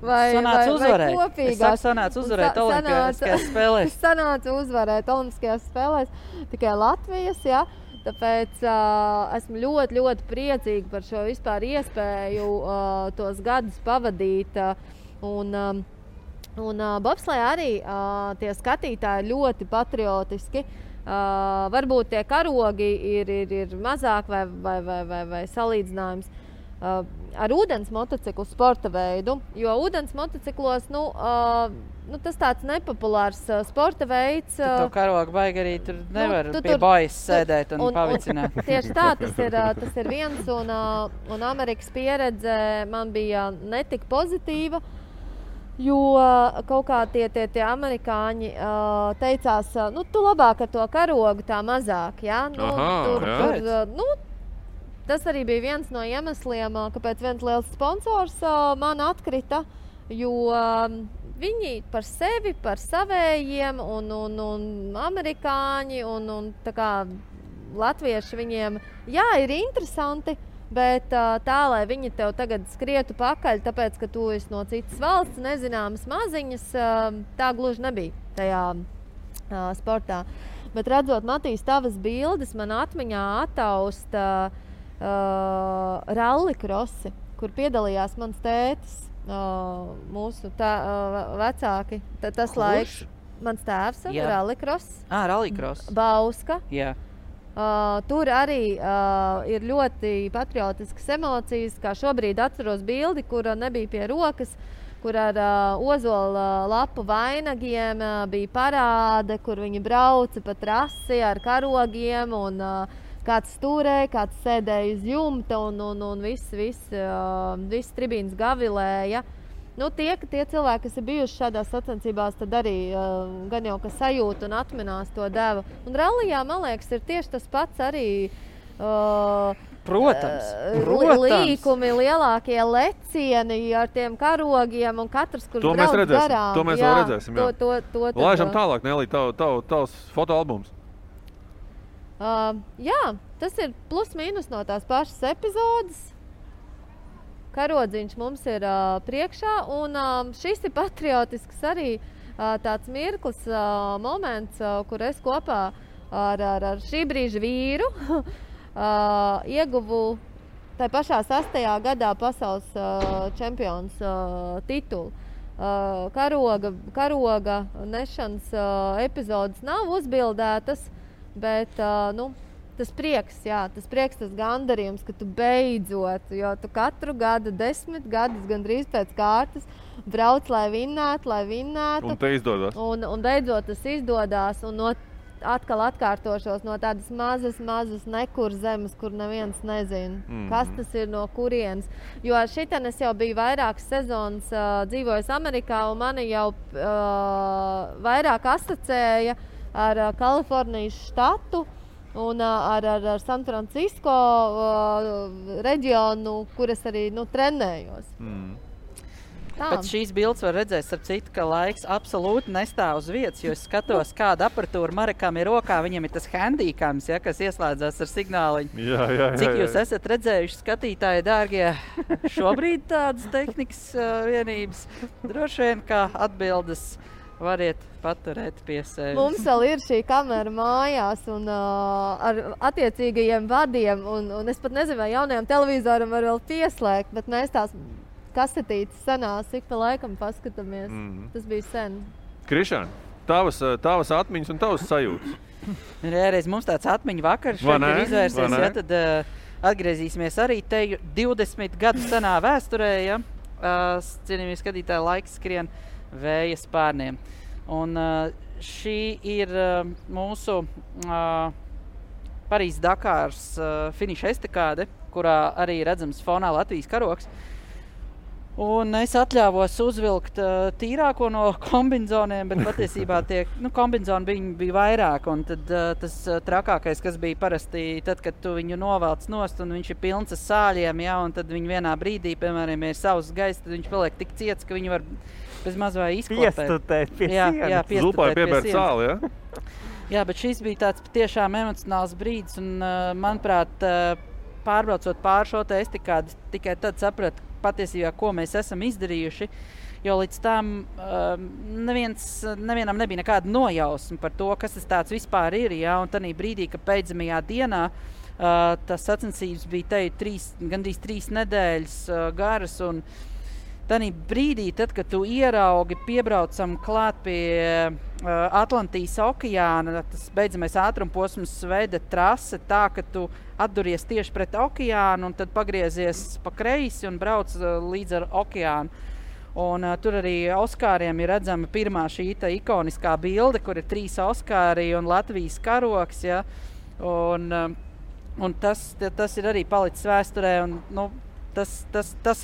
vai kopīgās. Es saku, sanāca uzvarēt Olimpiskajās spēlēs. Sanāca uzvarēt Olimpiskajās spēlēs. Tikai Latvijas, jā. Tāpēc esmu ļoti, ļoti priecīga par šo vispār iespēju tos gadus pavadīt. Un bobslejā arī tie skatītāji ļoti patriotiski. Varbūt tie karogi ir mazāk vai salīdzinājums ar ūdens motociklu sporta veidu, jo ūdens motociklos, tas tāds nepopulārs sporta veids. Tu to karogu baigi arī tur nevar pie bajas sēdēt un pavicināt. Tieši tā, tas ir viens, un Amerikas pieredze man bija netik pozitīva. Jo kaut kā tie amerikāņi teicās, tu labāk ar to karogu tā mazāk, ja? Tas arī bija viens no iemesliem, kāpēc viens liels sponsors man atkrita, jo viņi par sevi, par savējiem un amerikāņi un tā kā latvieši viņiem, jā, ir interesanti, bet tā, lai viņi tev tagad skrietu pakaļ, tāpēc, ka tu esi no citas valsts, nezināmas maziņas, tā gluži nebija tajā sportā. Bet redzot, Matīs, tavas bildes, man atmiņā attausta rallikrosi, kur piedalījās mans tētis, mūsu vecāki. Tas laiks, mans tēvs, rallikross. Rallikross. Bauska. Jā. Tur arī ir ļoti patriotiskas emocijas, kā šobrīd atceros bildi, kura nebija pie rokas, kur ar ozola lapu vainagiem bija parāde, kur viņi brauca pa trasi ar karogiem un kāds stūrēja, kāds sēdēja uz jumta un viss tribīns gavilēja. Tie cilvēki, kas ir bijuši šādās sacensībās, tad arī gan jau, ka sajūta un atminās to devu. Un rallijā, man liekas, ir tieši tas pats arī Protams. Līkumi, lielākie lecieni ar tiem karogiem un katrs, kurš brauc garām. To mēs vēl redzēsim. Laižam tālāk, Nelī, tavs fotoalbums. Jā, tas ir plus mīnus no tās pašas epizodes. Karodziņš mums ir priekšā, un šis ir patriotisks arī tāds mirklis, moments, kur es kopā ar šī brīža vīru ieguvu tai pašā 6. gadā pasaules čempions titulu. Karoga nešanas epizodes nav uzbildētas, bet tas prieks, tas gandarījums, ka tu beidzot, jo tu katru gadu, 10 gadus gandrīz pēc kārtas brauc, lai vinnētu. Un te izdodas. Un beidzot tas izdodās, un atkal atkārtošos no tādas mazas nekur zemes, kur neviens nezina, kas tas ir, no kurienes. Jo šitien es jau biju vairākas sezonas dzīvojis Amerikā, un mani jau vairāk asociēja ar Kalifornijas štatu, un ar San Francisco reģionu, kur es arī trenējos. Pēc šīs bildes var redzēt, starp citu, ka laiks absolūti nestāv uz vietas, jo es skatos, kāda aparatūra Marekam ir rokā. Viņam ir tas handīkams, kas ieslēdzās ar signāliņu. Jā. Cik jūs esat redzējuši, skatītāji, dārgie, šobrīd tādas tehnikas vienības? Droši vien, kā atbildes variet paturēt pie sevis. Mums vēl ir šī kamera mājās un ar attiecīgajiem vadiem, un es pat nezinu, vai jaunajam televizoram var vēl pieslēgt, bet mēs tās kasetītes senās ik pa laikam paskatāmies. Tas bija sen. Krišāni, tavas atmiņas un tavas sajūtas. Reiz mums tāds atmiņu vakars ir izvērsies, tad atgriezīsimies arī te 20 gadu senā vēsturē, cienījamie skatītāji, laiks skrien vēja spārniem. Un šī ir mūsu Parīzes Dakāras finiša estakāde, kurā arī redzams fonā Latvijas karogs. Un es atļāvos uzvilkt tīrāko no kombinzoniem, bet patiesībā tie kombinzoni bija vairāk. Un tad tas trakākais, kas bija parasti, tad, kad tu viņu novelc nost un viņš ir pilns ar sāļiem, ja, un tad viņi vienā brīdī, piemēram, ir savs gaiss, tad viņš paliek tik ciets, ka viņi var bez maz vai izklapēt. Piestutēt pie sienas. Jā, Zupai piebērt sāli, ja? Jā, bet šis bija tāds patiešām emocionāls brīdis, un, manuprāt, pārbraucot pāri šo te estikādi, tikai tad sapratu patiesībā, ko mēs esam izdarījuši, jo līdz tam nevienam nebija nekāda nojausma par to, kas tas tāds vispār ir, ja, un tanī brīdī, ka beidzamajā dienā tas sacensības bija gandrīz 3 nedēļas garas, un tanī brīdī, tad, kad tu ieraugi, piebraucam klāt pie Atlantijas okeāna, tas beidzamais ātrumposms veda trase tā, ka tu atduries tieši pret okeānu un tad pagriezies pa kreisi un brauc līdz ar okeānu. Un tur arī Oskāriem ir redzama pirmā šī ikoniskā bilde, kur ir 3 Oskāri un Latvijas karoks, ja? Un tas ir arī palicis vēsturē, un tas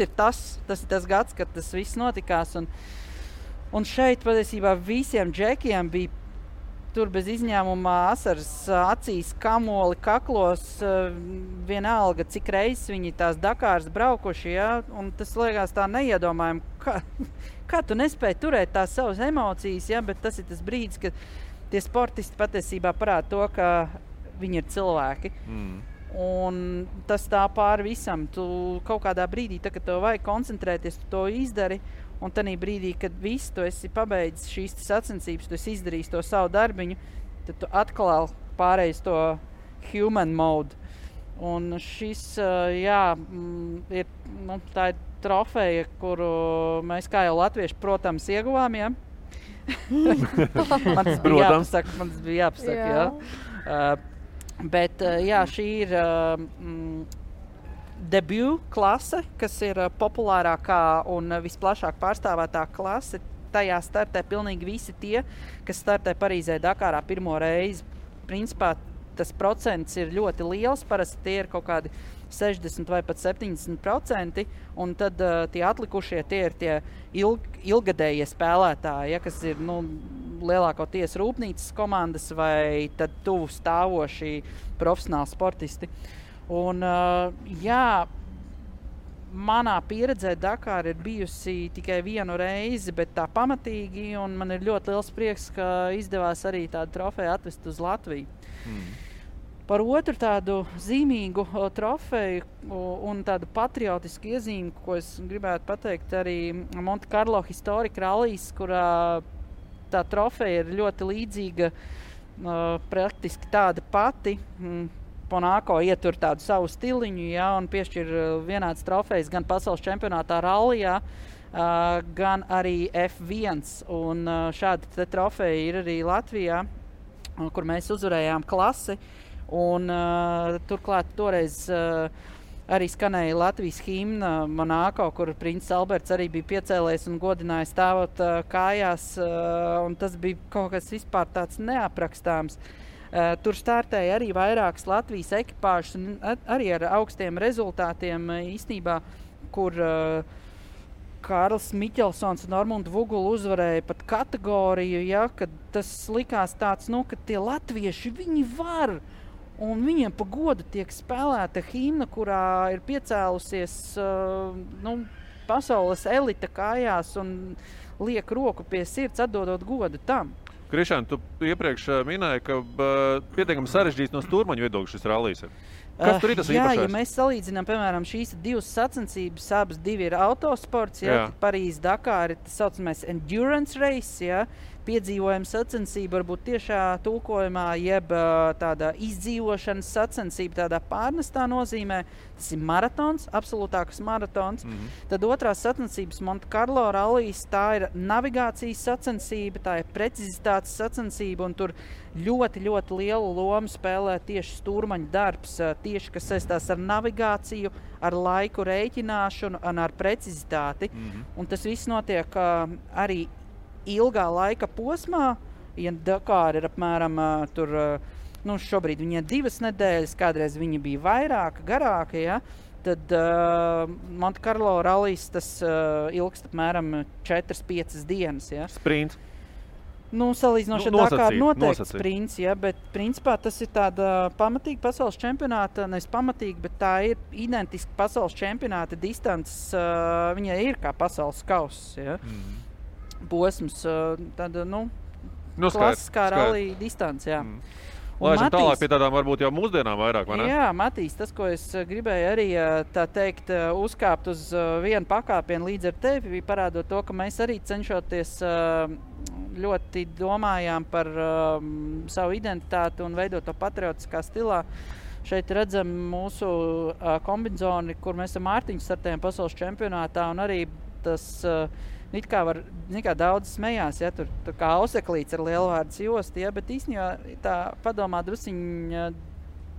ir tas gads, kad tas viss notikās. Un šeit patiesībā visiem džekiem bija tur bez izņēmuma asaras acīs, kamoli, kaklos, vienalga, cik reizes viņi tās Dakāras braukuši, ja? Un tas liekas tā neiedomājami, kā tu nespēji turēt tās savas emocijas, ja? Bet tas ir tas brīdis, kad tie sportisti patiesībā parāda to, ka viņi ir cilvēki. Un tas tā pāri visam. Tu kaut kādā brīdī, kad tev vajag koncentrēties, tu to izdari. Un tanī brīdī, kad viss tu esi pabeidzis šīs sacensības, tu esi izdarījis to savu darbiņu, tad tu atkal pārējis to human mode. Un šis, ir, tā ir trofeja, kuru mēs kā jau latvieši, protams, ieguvām, ja? Man tas bija jāpasaka, jā. Bet, šī ir debut klase, kas ir populārākā un visplašāk pārstāvētā klase. Tajā startē pilnīgi visi tie, kas startē Parīzē Dakārā pirmo reizi. Principā tas procents ir ļoti liels, parasti tie ir kaut kādi 60 vai pat 70%, un tad tie atlikušie tie ir tie ilgadējie spēlētāji, ja, kas ir lielākoties rūpnīcas komandas vai tad tuvu stāvoši profesionāli sportisti. Un, manā pieredzē Dakāra ir bijusi tikai vienu reizi, bet tā pamatīgi, un man ir ļoti liels prieks, ka izdevās arī tādu trofeju atvest uz Latviju. Par otru tādu zīmīgu trofeju un tādu patriotisku iezīmi, ko es gribētu pateikt, arī Monte Carlo Historic Rallies, kurā tā trofeja ir ļoti līdzīga, praktiski tāda pati. Ponāko ietur tādu savu stiliņu, ja, un piešķir vienāds trofejs gan pasaules čempionātā rallijā, gan arī F1. Un šāda trofeja ir arī Latvijā, kur mēs uzvarējām klasi. Un turklāt toreiz arī skanēja Latvijas himna Monāko, kur princis Alberts arī bija piecēlējis un godināja stāvot kājās. Un tas bija kaut kas vispār tāds neaprakstāms. Tur startēja arī vairākas Latvijas ekipāžas un arī ar augstiem rezultātiem īstenībā, kur Kārlis Miķelsons un Normunda Vugula uzvarēja pat kategoriju, ja, kad tas likās tāds, ka tie latvieši, viņi var, un viņiem pa godu tiek spēlēta himna, kurā ir piecēlusies pasaules elita kājās un liek roku pie sirds, atdodot godu tam. Krišān, tu iepriekš minēji, ka pietiekami sarežģīts no stūrmaņu viedokļa šis rallijs ir. Kas tur ir tas īpašais? Ja mēs salīdzinām, piemēram, šīs 2 sacensības, abas 2 ir autosports, ja, Parīze Dakāra ir tas saucamais endurance race, ja, piedzīvojuma sacensība, varbūt tiešā tulkojumā, jeb tāda izdzīvošanas sacensība, tādā pārnestā nozīmē. Tas ir maratons, absolūtāks maratons. Tad otrās sacensības Monte Carlo rallijs, tā ir navigācijas sacensība, tā ir precizitātes sacensība, un tur ļoti, ļoti lielu lomu spēlē tieši stūrmaņa darbs, tieši kas saistās ar navigāciju, ar laiku rēķināšanu un ar precizitāti. Un tas viss notiek arī ilgā laika posmā, ja Dakāra ir apmēram šobrīd viņa ir 2 nedēļas, kādreiz viņa bija vairāka, garāka, ja, tad Monte Carlo rallijs tas ilgst apmēram 4-5 dienas. Ja? Sprints. Nu, salīdzinoši ar Dakaru noteikti sprints, ja, bet principā tas ir tāda pamatīga pasaules čempionāta, nevis pamatīga, bet tā ir identiska pasaules čempionāta distances, viņai ir kā pasaules kauss, ja. Posms, tāda, klasiskā rallija distance, jā. Laižam tālāk pie tādām varbūt jau mūsdienām vairāk, vai ne? Jā, Matīs, tas, ko es gribēju arī, tā teikt, uzkāpt uz vienu pakāpienu līdz ar tevi, parādot to, ka mēs arī cenšoties ļoti domājām par savu identitāti un veidot to patriotiskā stilā. Šeit redzam mūsu kombinzoni, kur mēs ar Mārtiņu startējam pasaules čempionātā, un arī tas it kā daudz smējās, ja, tur kā auseklīts ar lielvārdas jostu, ja, bet īstenībā tā padomā drusiņa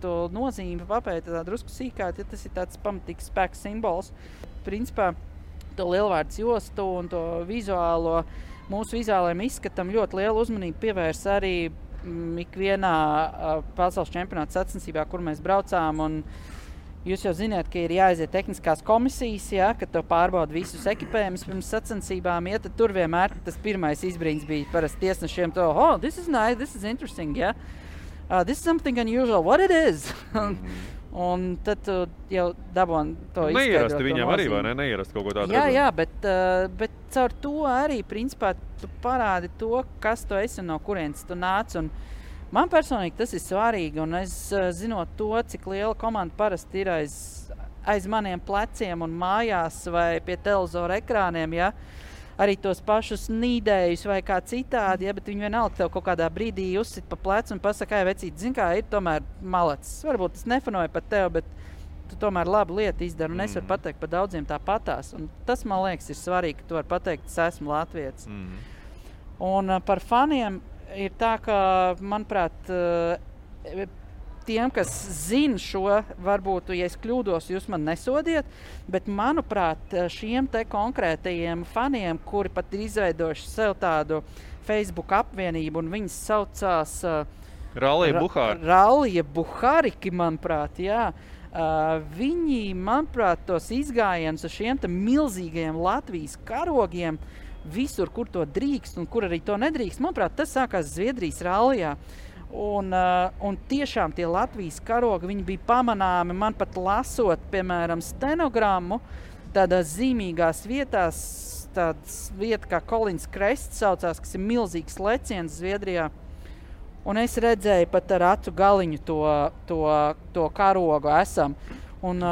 to nozīmi papēta tā drusku sīkāt, ja tas ir tāds pamatīgs spēks simbols. Principā to lielvārdas jostu un to vizuālo, mūsu vizuālajiem izskatam ļoti lielu uzmanību pievērs arī ikvienā pasaules čempionāta sacensībā, kur mēs braucām, un jūs jau zināt, ka ir jāaiziet tehniskās komisijas, ja, kad to pārbauda visus ekipējumus pirms sacensībām, ja, tad tur vienmēr tas pirmais izbrīns bija parasti tiesnešiem to, this is nice, this is interesting, ja. This is something unusual, what it is? Un tad tu jau dabon to izskaidrot. Neierasti viņam arī, vai ne? Neierasti kaut ko tādu. Jā, bet caur to arī, principā, tu parādi to, kas tu esi un no kurienes tu nāc. Un man personīgi tas ir svarīgi, un es zinot to, cik liela komanda parasti ir aiz maniem pleciem un mājās vai pie televizora ekrāniem, ja, arī tos pašus nīdējus vai kā citādi, ja, bet viņi vienalga tev kaut kādā brīdī uzsit pa plecu un pasaka, vecīt, zin kā, ir tomēr malacis. Varbūt tas nefanoja par tev, bet tu tomēr labu lietu izdari, un es varu pateikt par daudziem tāpatās. Un tas, man liekas, ir svarīgi, ka tu vari pateikt, es esmu latvietis. Un par faniem ir tā, ka, manuprāt, tiem, kas zina šo, varbūt, ja es kļūdos, jūs man nesodiet, bet, manuprāt, šiem te konkrētajiem faniem, kuri pat ir izveidojuši sev tādu Facebook apvienību, un viņas saucās Rallija Buhariki, manuprāt, jā. Viņi, manuprāt, tos izgājienus uz šiem te milzīgajiem Latvijas karogiem, visur, kur to drīkst un kur arī to nedrīkst. Manuprāt, tas sākās Zviedrijas rallijā. Un tiešām tie Latvijas karogi, viņi bija pamanāmi, man pat lasot, piemēram, stenogrammu, tādās zīmīgās vietās, tāds vieta kā Kolins Krests saucās, kas ir milzīgs leciens Zviedrijā. Un es redzēju pat ar acu galiņu to karogu esam. Un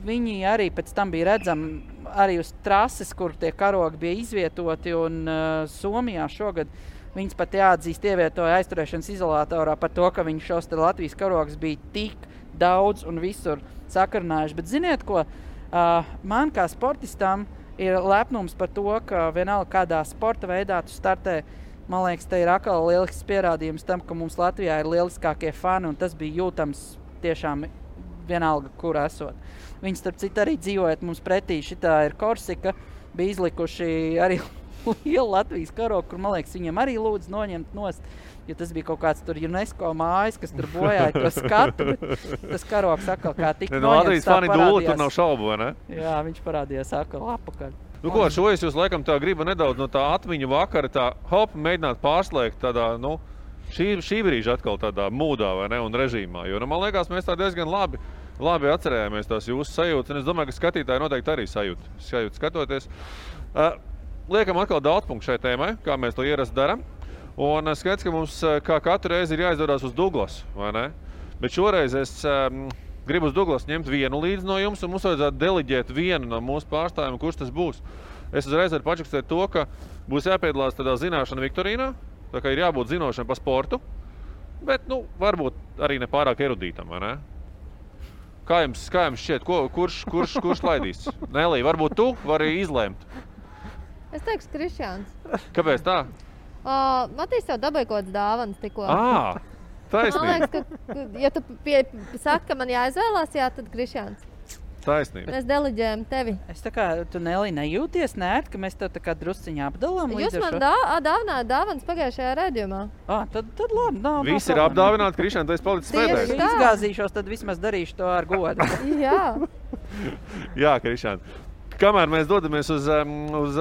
viņi arī pēc tam bija redzami arī uz trases, kur tie karogi bija izvietoti, un Somijā šogad viņas pat jāatzīst ievietoja aizturēšanas izolatorā par to, ka viņi šos te Latvijas karogus bija tik daudz un visur sakarinājuši. Bet ziniet ko, man kā sportistam ir lepnums par to, ka vienalga kādā sporta veidā tu startē. Man liekas, te ir atkal lielisks pierādījums tam, ka mums Latvijā ir lieliskākie fani, un tas bija jūtams tiešām vienalga, kur esot. Viņi starp citu arī dzīvojot mums pretī, šitā ir Korsika, bija izlikuši arī lielu Latvijas karogu, kur, man liekas, viņiem arī lūdzu noņemt nost, jo tas bija kaut kāds tur UNESCO mājas, kas tur bojāja to skatu, bet tas karogs atkal kā tik noņemts, Latvijas fani dūli, tur nav šaubu, vai ne? Jā, viņš parādījās atkal apakaļ. Nu ko, šo es jūs laikam tā gribu nedaudz no tā atmiņu vakara, tā mēģināt pārslēgt tādā, šī brīža atkal tādā mūdā, vai ne, un režīmā, jo, man liekas, mēs tā diezgan labi atcerējāmies tās jūsu sajūtas, un es domāju, ka skatītāji noteikti arī sajūt skatoties. Liekam atkal daudz punktu šai tēmai, kā mēs to ierasti daram, un skaidrs, ka mums kā katru reizi ir jāizdodās uz Douglas, vai ne? Bet šoreiz es gribu uz Douglas ņemt vienu līdzi no jums, un mums vajadzētu deliģēt vienu no mūsu pārstāvjiem, kurš tas būs. Es uzreiz varu pačakstēt to, ka būs jāpiedalās tādā zināšana viktorīnā, tā kā ir jābūt zinošana pa sportu, bet, varbūt arī ne pārāk erudītam, vai ne? Kā jums šķiet, kurš laidīs? Nelī, varbūt tu vari izlēmt? Es teikšu Krišjāns. Kāpēc tā? Matīs tev dabēja kaut kāds dāvanas tikko. Taisnība. Man liekas, ka ja tu saki, ka man jāizvēlās, tad Krišjāns. Taisnība. Mēs deliģējam tevi. Es tā kā, tu Nelī nejūties nērt, ka mēs tev tā kā drusciņā apdalām līdz Jūs man dāvinājāt dāvanas pagājušajā redzījumā. Tad labi. Visi ir apdāvināti, Krišjāns, tu esi palicis pēdējais. Izgāzīšos, tad vismaz darīšu to ar godu. Jā. Jā, Krišāna. Kamēr mēs dodamies uz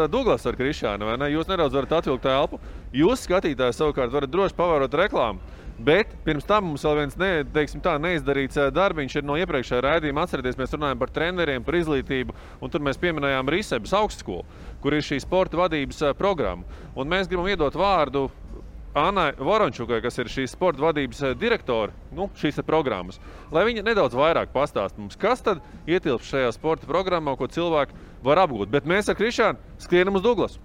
Douglasu ar Krišānu, vai ne? Jūs nedaudz varat atvilkt elpu. Jūs, skatītāji, savukārt varat droši pavērot reklāmu. Bet pirms tam mums vēl viens neizdarīts darbiņš ir no iepriekšējā raidījuma. Atcerieties, mēs runājam par treneriem, par izglītību, un tur mēs pieminējām Risebas augstskolu, kur ir šī sporta vadības programma. Un mēs gribam iedot vārdu Annai Vorončukai, kas ir šīs sporta vadības direktori, šīs programmas, lai viņa nedaudz vairāk pastāst mums, kas tad ietilpst šajā sporta programmā, ko cilvēki var apgūt. Bet mēs ar Krišānu skrienam uz Douglasu.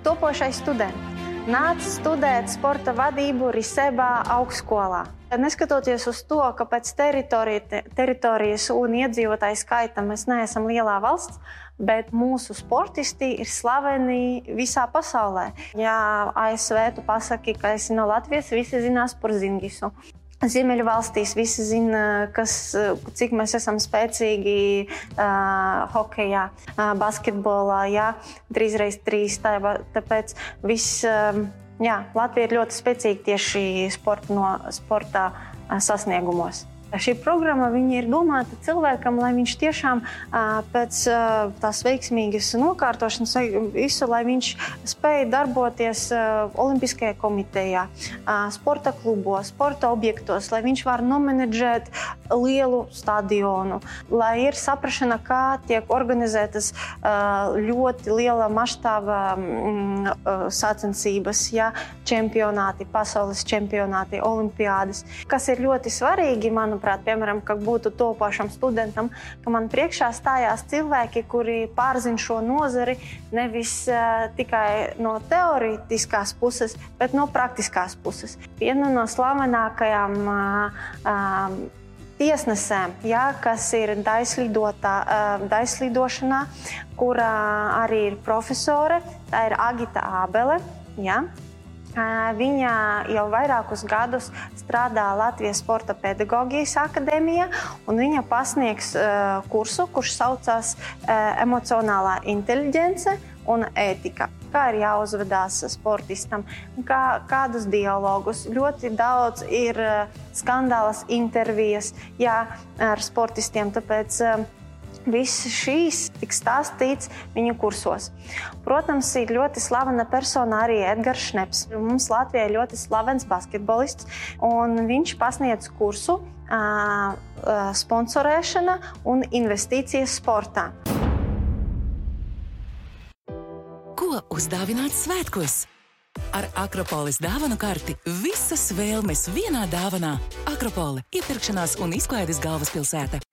Topošais students nāca studēt sporta vadību Risebā augstskolā. Neskatoties uz to, ka pēc teritorijas un iedzīvotāju skaita mēs neesam lielā valsts, bet mūsu sportisti ir slaveni visā pasaulē. Ja ASV tu pasaki, ka esi no Latvijas, visi zinās par Zingisu. Ziemeļu valstīs visi zina, cik mēs esam spēcīgi hokejā, basketbolā, 3x3. Tāpēc Latvija ir ļoti spēcīga tieši sporta sasniegumos. Šī programma ir domāta cilvēkam, lai viņš tiešām pēc tās veiksmīgas nokārtošanas visu, lai viņš spēja darboties Olimpiskajā komitejā, sporta klubos, sporta objektos, lai viņš var nomenedžēt lielu stadionu, lai ir saprašana, kā tiek organizētas ļoti liela maštāva sacensības, čempionāti, pasaules čempionāti, olimpiādas, kas ir ļoti svarīgi, manuprāt, piemēram, ka būtu topošam studentam, ka man priekšā stājās cilvēki, kuri pārzina šo nozari nevis tikai no teorētiskās puses, bet no praktiskās puses. Viena no slavenākajām tiesnesēm, kas ir daļslidošanā, kurā arī ir profesore, tā ir Agita Ābele. Viņa jau vairākus gadus strādā Latvijas Sporta pedagoģijas akadēmijā, un viņa pasniegs kursu, kurš saucās emocionālā inteliģence un ētika. Kā ir jāuzvedās sportistam, kādus dialogus. Ļoti daudz ir skandālas intervijas ar sportistiem, tāpēc viss šīs tik stāstīts viņu kursos. Protams, ir ļoti slavena persona arī Edgars Šneps. Mums Latvijā ir ļoti slavens basketbolists, un viņš pasniedz kursu sponsorēšana un investīcijas sportā. Ko uzdāvināt svētkos? Ar Akropolis dāvanu karti visas vēlmes vienā dāvanā. Akropole – iepirkšanās un izklaides galvaspilsēta.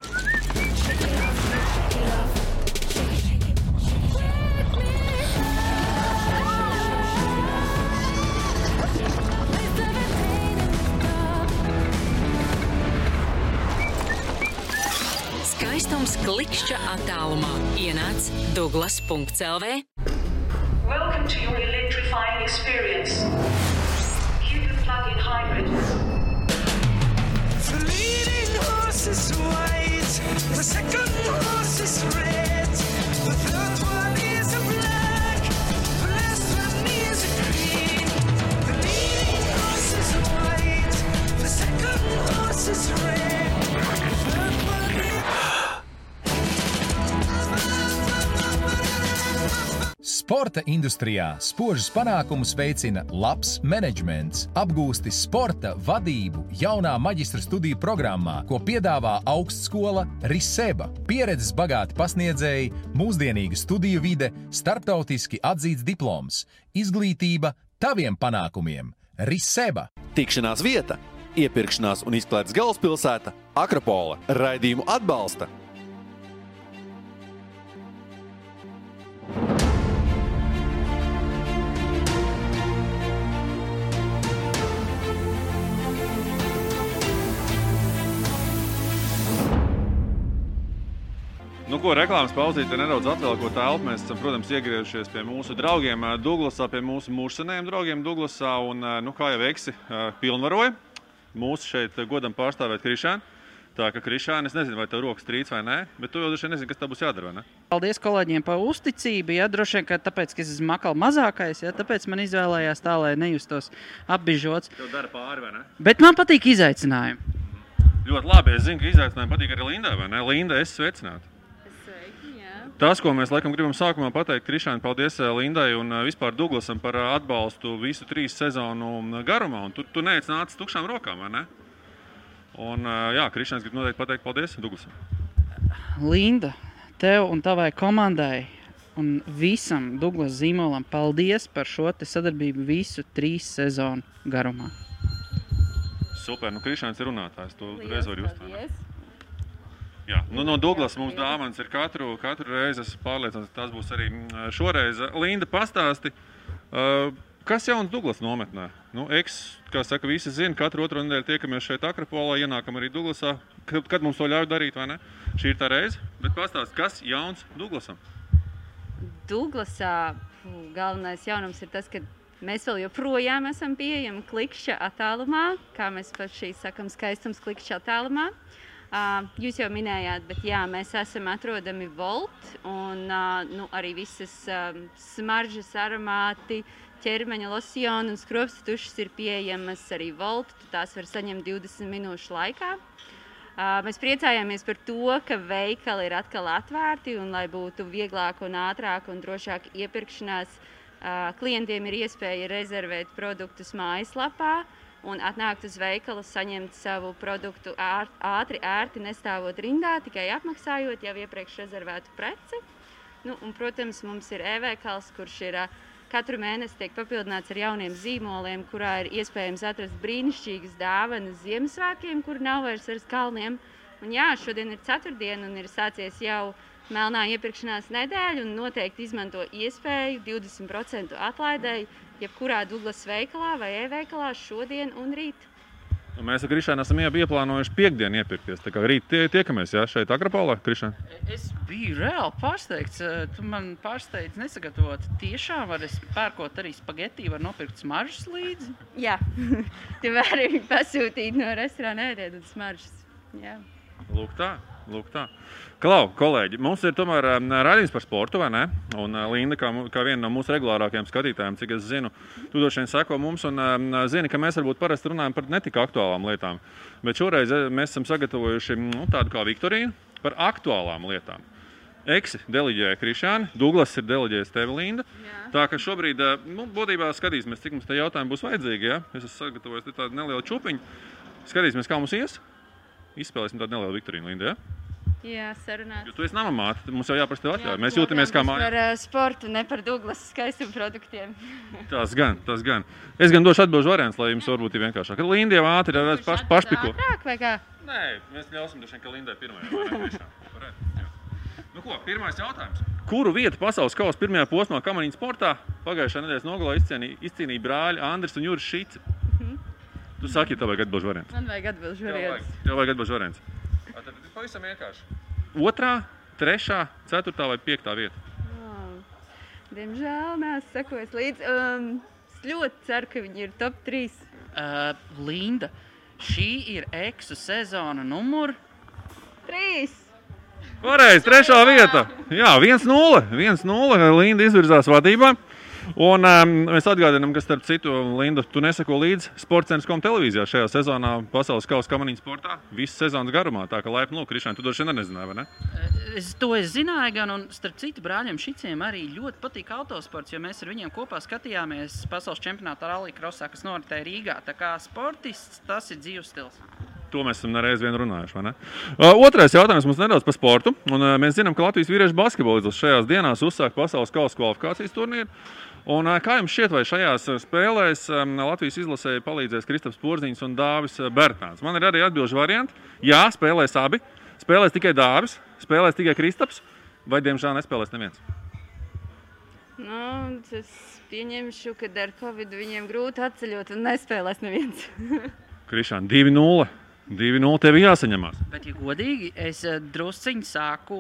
Skaistums klikšķa attālumā. Ienāc Douglas.lv. Welcome to your electrifying experience. Cupid plug-in hybrid. The leading horse is white, the second horse is red, the third one is a black, the last one is a green. The leading horse is white, the second horse is red, the third one is... Sporta industrijā spožus panākumus veicina labs menedžments, apgūsti sporta vadību jaunā maģistra studiju programmā, ko piedāvā augstskola Riseba. Pieredzes bagāti pasniedzēji, mūsdienīga studiju vide, starptautiski atzīts diploms, izglītība taviem panākumiem. Riseba. Tikšanās vieta, iepirkšanās un izklaides galvaspilsēta Akropole. Raidījumu atbalsta Reklāmas pauzīte nedaudz atvēlkot telpu. Mēs esam, protams, iegriežušies pie mūsu draugiem Douglasā, pie mūsu mūžsanējiem draugiem Douglasā. Un, kā jau Eksi pilnvaroja, mūsu šeit godam pārstāvēt Krišānu. Tā ka, Krišāne, es nezinu, vai tev rokas trīc vai nē, bet tu jau droši vien nezini, kas tev būs jādara, vai ne? Paldies kolēģiem par uzticību, ja, droši vien, ka tāpēc, ka es esmu makal mazākais, ja, tāpēc man izvēlējās tā, lai nejustos apbižots. Tev dara pāri, vai ne? Bet man patīk izaicinājumi. Ļoti labi, es zinu, ka izaicinājumi patīk arī Lindai, vai ne? Linda, es sveicinātu. Tas, ko mēs laikam gribam sākumā pateikt, Krišāne, paldies Lindai un vispār Douglasam par atbalstu visu 3 sezonu garumā, un tu neesi nācis tukšām rokām, vai ne? Un jā, Krišāns grib noteikti pateikt paldies Douglasam. Linda, tev un tavai komandai un visam Douglas zīmolam paldies par šo te sadarbību visu 3 sezonu garumā. Super, nu Krišāns ir runātājs, tu reiz vari uzstāt. Jā, nu no Douglas mums dāvanas ir katru reizi, es pārliecināts, ka tas būs arī šoreiz. Linda, pastāsti, kas jauns Douglas nometnē? Nu, kā saka, visi zina, katru otro nedēļu tiekamies šeit Akropolā, ienākam arī Douglasā. Kad mums to ļauj darīt, vai ne? Šī ir tā reize, bet pastāsti, kas jauns Douglasam? Douglasā galvenais jaunums ir tas, ka mēs vēl joprojām esam pieejami klikšķa attālumā, kā mēs paši sakam, skaistums klikšķa attālumā. Jūs jau minējāt, bet jā, mēs esam atrodami Volt un arī visas smaržas, aromāti, ķermeņa losjoni un skropsta tušas ir pieejamas arī Volt. Tās var saņemt 20 minūšu laikā. Mēs priecājāmies par to, ka veikali ir atkal atvērti un lai būtu vieglāk un ātrāk un drošāk iepirkšanās, klientiem ir iespēja rezervēt produktus mājaslapā un atnākt uz veikalu, saņemt savu produktu ātri, ērti, nestāvot rindā, tikai apmaksājot jau iepriekš rezervētu preci. Nu, un, protams, mums ir e-veikals, kurš ir katru mēnesi tiek papildināts ar jauniem zīmoliem, kurā ir iespējams atrast brīnišķīgas dāvanas Ziemassvētkiem, kur nav vairs ar kalniem. Un jā, šodien ir ceturtdiena un ir sācies jau melnā iepirkšanās nedēļa un noteikti izmanto iespēju 20% atlaidēji jebkurā Douglas veikalā vai e-veikalā šodien un rīt. Mēs ar Krišānu esam ieplānojuši piekdienu iepirkties. Tā kā rīt tiekamies, jā, šeit Akropolā, Krišāne? Es biju reāli pārsteigts. Tu man pārsteidz nesagatavot. Tiešām var es pērkot arī spageti, var nopirkt smaržas līdzi? Jā, tu vari pasūtīt no restorāna ēdiet un smaržas. Jā. Lūk tā. Klau, kolēģi, mums ir tomēr raidījums par sportu, vai ne? Un Linda, kā viena no mūsu regulārākajiem skatītājiem, cik es zinu, tu droši vien seko mums un zini, ka mēs varbūt parasti runājam par netik aktuālām lietām. Bet šoreiz mēs esam sagatavojuši tādu kā viktoriju par aktuālām lietām. Eksi deleģēja Krišāni, Douglas ir deleģējis tevi, Linda. Jā. Tā ka šobrīd, būtībā skatīsimies, cik mums te jautājumi būs vajadzīgi, ja? Es esmu sagatavojis tādu nelielu čupiņu. Skatīsimies, kā mums ies. Izspēlēsim tādu nelielu viktoriju, Linda, ja? Jā, sarunāt. Jo tu esi namamāte, mums jau jāprasa tev atļauj. Mēs jūtamies kā mājā. Par sportu, ne par Douglas skaistumu produktiem. Tas gan. Es gan došu atbilžu variants, lai jums varbūt ir vienkāršāk. Linda jau ātri ir pašpiko. Ātrāk vai kā? Nē, mēs ļausim droši vien, ka Lindai pirmajā. Nu ko, pirmais jautājums. Kuru vietu pasaules kausa pirmajā posmā kamaniņu sportā pagājušā nedēļas nogalā izcīnīja brāļi Andris un Juris Šici? Tu saki, ja tev vajag atbilžu variants. Man vajag atbilžu variants. Tev vajag atbilžu variants. Tad pavisam vienkārši. 2., 3., 4. vai 5. vieta? Diemžēl neesmu sekojis līdzi. Es ļoti ceru, ka viņi ir top 3. Linda, šī ir eksu sezona numur 3. Pareizi, 3. vieta. Jā, 1-0. Linda izvirzās vadībā. Un mēs atgādinām, ka starp citu, Linda, tu neseko līdzi Sportcentrs.com televīzijā šajā sezonā pasaules kausa kamaniņu sportā visu sezonas garumā. Tā kā laipni lūk, Krišāne, tu droši vien nezināji, vai ne? To es zināju gan, un starp citu brāļiem Šiciem arī ļoti patīk autosports, jo mēs ar viņiem kopā skatījāmies pasaules čempionāta rallija-krosā, kas noritēja Rīgā. Tā kā sportists, tas ir dzīves stils. To mēs esam nereiz vien runājuši, vai ne? Otrais jautājums mums nedaudz par sportu. Un mēs zinām, ka Latvijas vīriešu basketbolists šajās dienās uzsāk pasaules kausa kvalifikācijas turnīru. Un kā jums šķiet, vai šajās spēlēs Latvijas izlasēji palīdzēs Kristaps Porziņš un Dāvis Bērtāns? Man ir arī atbilžu varianti. Jā, spēlēs abi. Spēlēs tikai Dāvis, spēlēs tikai Kristaps, vai diemžēl nespēlēs neviens? Nu, es pieņemšu, ka ar Covid viņiem grūti atceļot un nespēlēs neviens. Krišāne, 2-0. 2-0 tev jāsaņemās. Bet, ja godīgi, es drusciņi sāku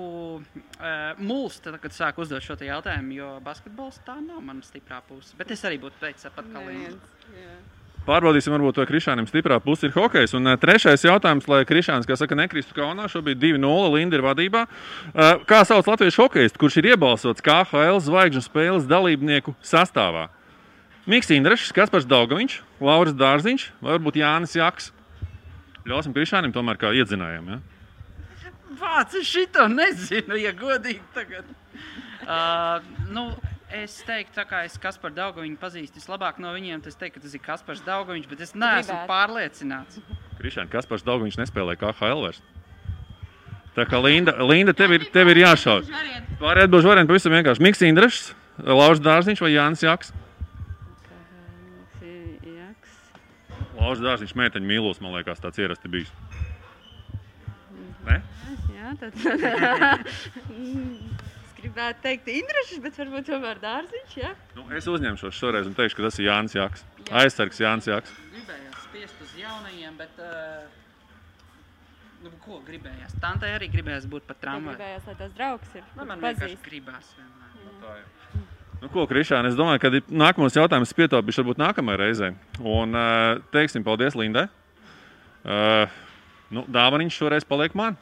mulst, kad sāku uzdot šo jautājumu, jo basketbols tā nav mana stiprā puse. Bet es arī būtu teicis pat kā Linda. Pārbaudīsim, varbūt to Krišānim stiprā pusi ir hokejs. Un trešais jautājums, lai Krišāns, kā saka, nekristu kaunā, šobrīd 2-0, Linda ir vadībā. Kā sauc latviešu hokejistu, kurš ir iebalsots KHL zvaigžņu spēles dalībnieku sastāvā? Miks Indrašs, Kaspars Daugaviņš, Lauris Dārziņš vai varbūt Jānis Jaks? Ļausim Krišānim tomēr kā iedzinājam, ja? Vāc, es šito nezinu, ja godīgi tagad. Es teiktu, tā kā es Kasparu Daugaviņu pazīstu vislabāk no viņiem, tad es teiktu, ka tas ir Kaspars Daugaviņš, bet es neesmu pārliecināts. Krišāni, Kaspars Daugaviņš nespēlē KHL vairs. Tā kā Linda tev ir jāšauj. Pārējā atbilžu varianti pavisam vienkārši. Miks Indrašs, Lauris Dārziņš vai Jānis Jaks? Lauris Dārziņš meiteņu mīlos, man liekas, tāds ierasti bijis. Ne? Jā, tad... gribētu teikt Indrašs, bet varbūt tomēr Dārziņš, jā? Es uzņemšos šoreiz un teikšu, ka tas ir Jānis Jaks. Aizsargs Jānis Jaks. Gribējās spiest uz jaunajiem, bet... ko gribējās? Tantai arī gribējās būt pat tramvai. Gribējās, lai tās draugs ir. Man vienkārši gribās vienmēr. Ko, Krišāni, es domāju, ka nākamos jautājumus pietaupīšu varbūt nākamajai reizei. Un teiksim paldies Lindai. Dāvaniņš šoreiz paliek man.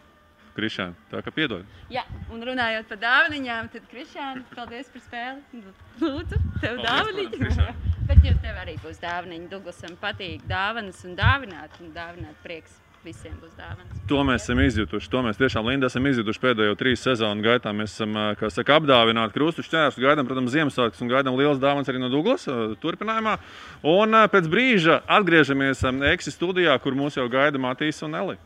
Krišāni, tā kā piedod. Jā, un runājot par dāvaniņām, tad Krišāni, paldies par spēli. Lūdzu, tev dāvaniņu. Bet tev arī būs dāvaniņi. Douglasam patīk dāvanas un dāvināt prieks. Visiem būs dāvanas. To mēs esam izjutuši. To mēs tiešām, Linda, esam izjutuši pēdējo 3 sezonu gaitā. Mēs esam, kā saka, apdāvināti krustu šķērsus, gaidām, protams, Ziemassvētkus un gaidām lielas dāvanas arī no Douglas turpinājumā. Un pēc brīža atgriežamies Eksi studijā, kur mūs jau gaida Matīs un Eli.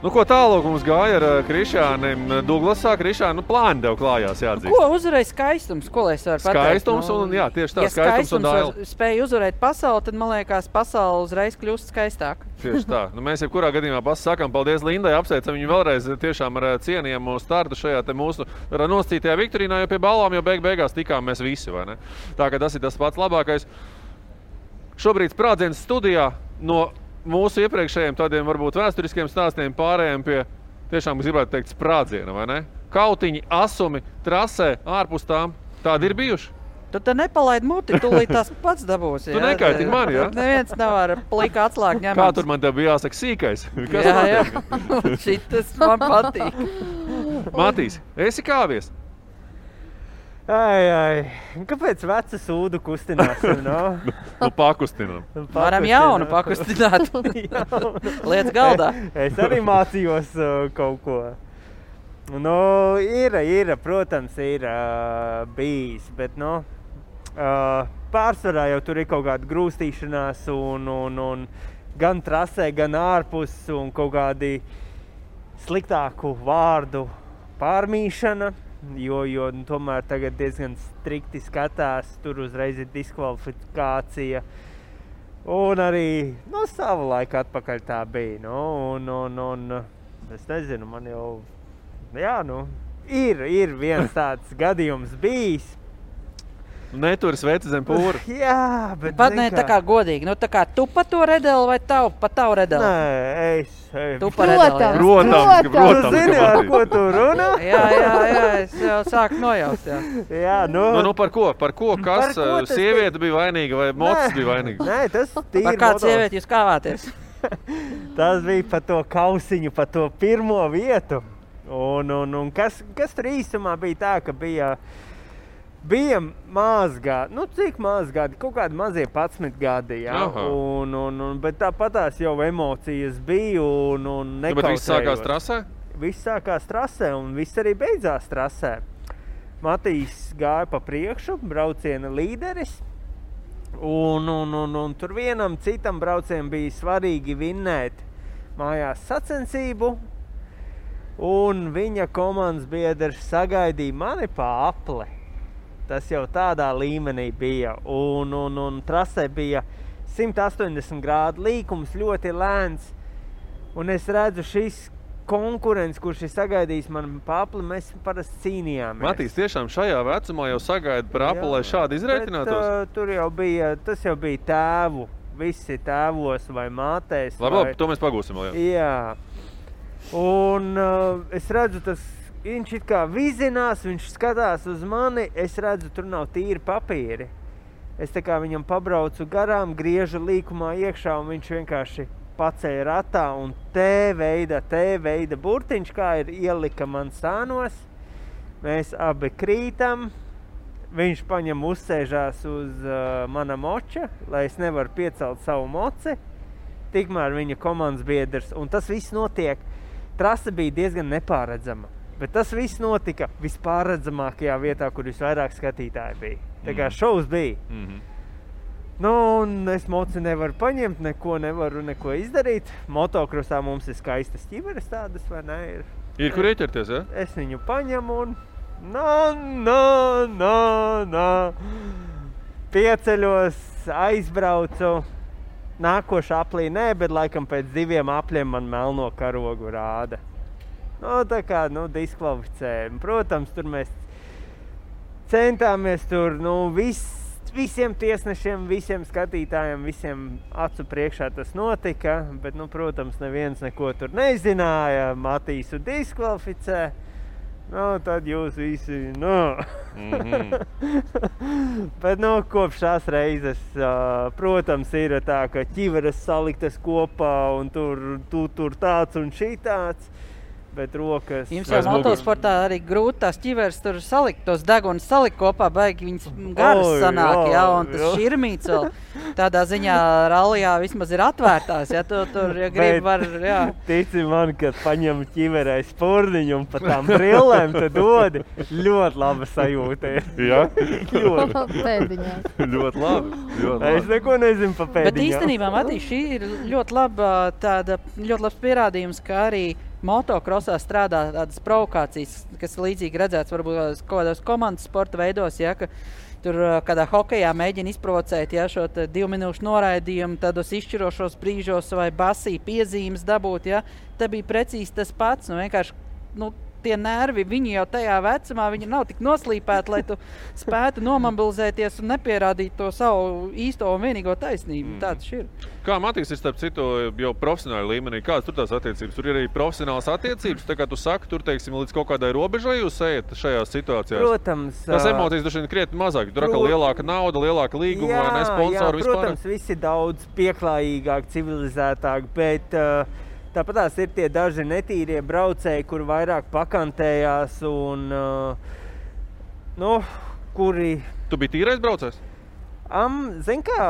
Ko tālāk mums gāja ar Krišānim Douglasā? Krišāni, plāni tev klājās jāatzīst. Ko uzvarēja skaistums? Ko lai es varu pateikt? Skaistums un, jā, tieši tā, skaistums un daila. Spēja uzvarēt pasauli, tad, man liekas, pasauli uzreiz kļūst skaistāk. Tieši tā. Mēs jebkurā gadījumā sakām paldies Lindai, apsveicam viņu vēlreiz tiešām ar cienījamu startu šajā te mūsu nosacītajā viktorīnā, jo pie balvām jau beigās tikām mēs visi, vai ne? Tā kā tas ir tas pats labākais. Šobrīd sprādziens studijā no mūsu iepriekšējiem tādiem varbūt vēsturiskiem stāstiem pārējiem pie tiešām, gribētu teikt, sprādziena, vai ne? Kautiņi, asumi, trasē, ārpus tām. Tādi ir bijuši? Tu te nepalaid muti, tūlīt tās pats dabūs. Tu nekaitini mani, jā? Neviens nav ar plika atslāgu ņemams. Kā tur man tev bija jāsaka sīkais? Jā. Šitas man patīk. Matīs, esi kāvies? Kāpēc veca sūdu kustināsim, no? Pakustinām. Varam jaunu pakustināt. Lietas galdā. Es arī mācījos kaut ko. Protams, ir bijis, bet, pārsvarā jau tur ir kaut kāda grūstīšanās un gan trasē, gan ārpus un kaut kādi sliktāku vārdu pārmīšana. Jo tomēr tagad diezgan strikti skatās, tur uzreiz ir diskvalifikācija. Un arī savu laiku atpakaļ tā bija. Es nezinu, man jau, ir viens tāds gadījums bijis. Neturis veci zem pūra. Jā, bet... Pat ne tā kā godīgi. Tā kā tu pa to redeli vai pa tavu redeli? Nē, es... Tu pa redeli, jā. Protams. Tu zini, ar ko tu runā? Jā, es jau sāku nojaust, jā. Jā, par ko? Par ko? Kas? Sieviete bija vainīga vai mocis bija vainīga? Nē, tas tīri par kādu sievieti jūs kāvāties? Tas bija par to kausiņu, par to pirmo vietu. Un kas tur īstumā bija tā, ka bija maz gadi, cik maz gadi, kaut kādi mazie 11 gadi, jā. Bet tāpatās jau emocijas bija un nekautējos. Bet viss sākās trasē? Viss sākās trasē un viss arī beidzās trasē. Matīs gāja pa priekšu, brauciena līderis. Un tur vienam citam braucienam bija svarīgi vinnēt mājās sacensību. Un viņa komandas biedrs sagaidīja mani pa apli. Tas jau tādā līmenī bija. Un trasē bija 180 grādu līkums, ļoti lēns. Un es redzu šis konkurents, kurš ir sagaidījis man pa apli, mēs parasti cīnījāmies. Matīs, tiešām šajā vecumā jau sagaida par apli, lai šādi izreitinātos? Bet, tur jau bija, tas jau bija tēvu visi tēvos vai mātēs. Labi, to mēs pagūsim vēl. Jā. Un es redzu, viņš it kā vizinās, viņš skatās uz mani, es redzu, tur nav tīri papīri. Es tā kā viņam pabraucu garām, griežu līkumā iekšā, un viņš vienkārši pacēja ratā, un T veida burtiņš, kā ir ielika man sānos. Mēs abi krītam, viņš paņem uzsēžās uz mana moča, lai es nevaru piecelt savu moci. Tikmēr viņa komandas biedrs, un tas viss notiek. Trase bija diezgan nepārredzama, bet tas viss notika vispārredzamākajā vietā, kur visvairāk skatītāji bija. Tā kā šovs bija. Nu, un es moci nevaru paņemt, neko izdarīt. Motokrosā mums ir skaistas ķiveres tādas, vai ne? Ir kur ieķerties, ja? Es viņu paņemu un pieceļos, aizbraucu. Nākošā aplī nē, bet laikam pēc 2 apļiem man melno karogu rāda. Nu, tā kā, diskvalificējam. Protams, tur mēs centāmies tur, visiem tiesnešiem, visiem skatītājiem, visiem acu priekšā tas notika, bet, protams, neviens neko tur nezināja. Matīsu diskvalificē. Tad jūs visi, Bet, kopš tās reizes, protams, ir tā, ka ķiveres saliktas kopā un tur tāds un šitāds. Bet rokas... Jums jau motosportā arī grūti tās ķiveres tur salikt, tos degunas salikt kopā, baigi viņas garas sanāk, un tas širmīts vēl tādā ziņā rallijā vismaz ir atvērtās, tur, ja grib, var, Tici man, kad paņem ķiverē spurniņu un pa tām brillēm, tad dodi ļoti laba sajūta. Jā? Pēdiņās. Ļoti labi. Es neko nezinu pa pēdiņām. Bet īstenībā, Matīs, šī ir ļoti labs pierādījums, ka arī motokrosā strādā tādas provokācijas, kas līdzīgi redzēts varbūt kaut kādos komandas sporta veidos, ka tur kādā hokejā mēģina izprovocēt šo 2 minūšu noraidījumu, tādos izšķirošos brīžos vai basī piezīmes dabūt, Te bija precīzi tas pats, vienkārši, tie nervi, viņi jau tajā vecumā, viņi nav tik noslīpēti, lai tu spētu nomobilizēties un nepierādīt to savu īsto un vienīgo taisnību. Tāds ir. Kā Matīs ir starp citu jau profesionāli līmenī? Kādas tur tās attiecības? Tur ir arī profesionālas attiecības, tā kā tu saki, tur, teiksim, līdz kaut kādai robežai jūs ejat šajās situācijās? Protams. Tas emocijas droši vien krietni mazāk, tur atkal lielāka nauda, lielāka līguma vai ne sponsori vispār? Protams, visi daudz pieklājīgāk, civilizētāk, bet tāpat tās ir tie daži netīrie braucēji, kuri vairāk pakantējās un, kuri... Tu biji tīrais braucējs? Zin kā,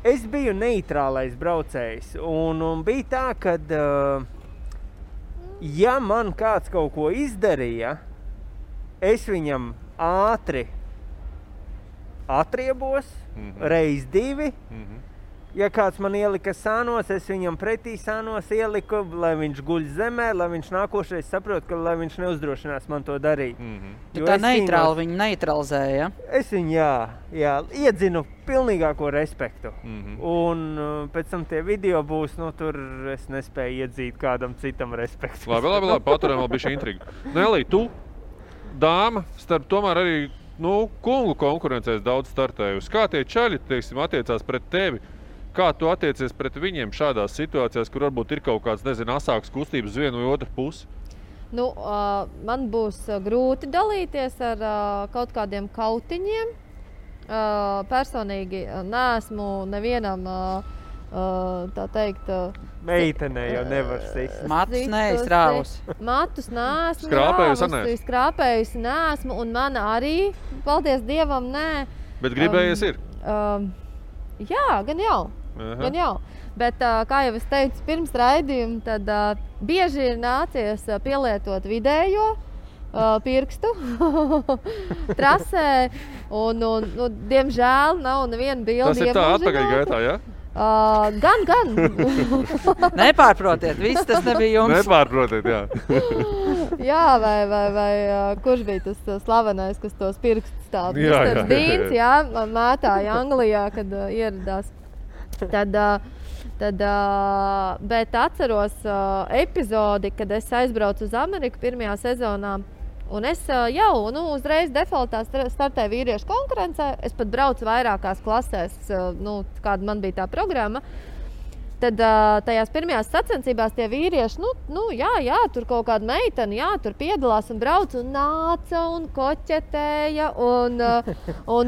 es biju neitrālais braucējs un bija tā, kad, ja man kāds kaut ko izdarīja, es viņam ātri atriebos, reiz 2. Ja kāds man ielika sānos, es viņam pretī sānos ieliku, lai viņš guļ zemē, lai viņš nākošais saprot, ka lai viņš neuzdrošinās man to darīt. Tu tā neitrāli viņu neutralizēja, Es viņu, iedzinu pilnīgāko respektu. Un pēc tam tie video būs, tur es nespēju iedzīt kādam citam respektu. Labi, paturam vēl bišķi intrigu. Nelī, tu, dāma, starp tomēr arī, kungu konkurencēs daudz startējusi. Kā tie čaļi, teiksim, attiecās pret tevi? Kā tu attiecies pret viņiem šādās situācijās, kur varbūt ir kaut kāds, asāks kustības uz vienu vai otru pusi? Man būs grūti dalīties ar kaut kādiem kautiņiem. Personīgi neesmu nevienam, tā teikt... Meitenē jau nevar sist. Matus neizrāvus. Matus neesmu skrāpējusi neesmu, un mana arī, paldies Dievam, nē. Bet gribējies ir? Jā, gan jau. Bet, kā jau es teicu pirms raidījuma, tad bieži ir nācies pielietot vidējo pirkstu trasē, un diemžēl nav neviena bildi iemužināt. Tas ir tā atpakaļ gaitā, ja? Gan. Nepārprotiet, viss tas nebija jums. Nepārprotiet, jā. Jā, vai kurš bija tas slavenais, kas tos pirkstus tādu Mr. Dīns, mētāja Anglijā, kad ieradās. Bet atceros epizodi, kad es aizbraucu uz Ameriku pirmajā sezonā, Un es jau uzreiz defaultā startēju vīriešu konkurencē. Es pat braucu vairākās klasēs, kāda man bija tā programma. Tad tajās pirmajās sacensībās tie vīrieši, jā, tur kaut kāda meitene, tur piedalās un brauc un nāca un koķetēja un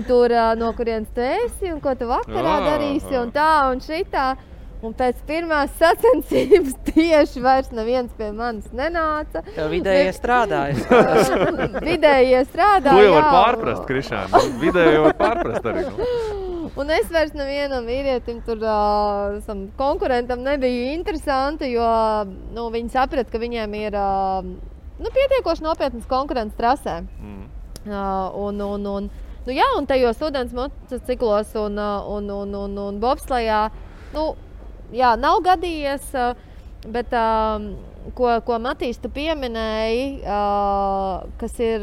tur no kurienes tu esi un ko tu vakarā darīsi un tā un šitā. Un pēc pirmās sacensības tieši vairs neviens pie manis nenāca. Tev vidējie strādāja. Vidējie strādāja, To jau var pārprast, Krišāna. Vidēji var pārprast arī. Un es vairs nevienam vīrietim tur konkurentam nebija interesanti, jo viņi saprat, ka viņiem ir pietiekoši nopietnas konkurences trasē. Un tajos ūdens motociklos un bobslejā, nav gadījies, bet ko Matīs tu pieminēji, kas ir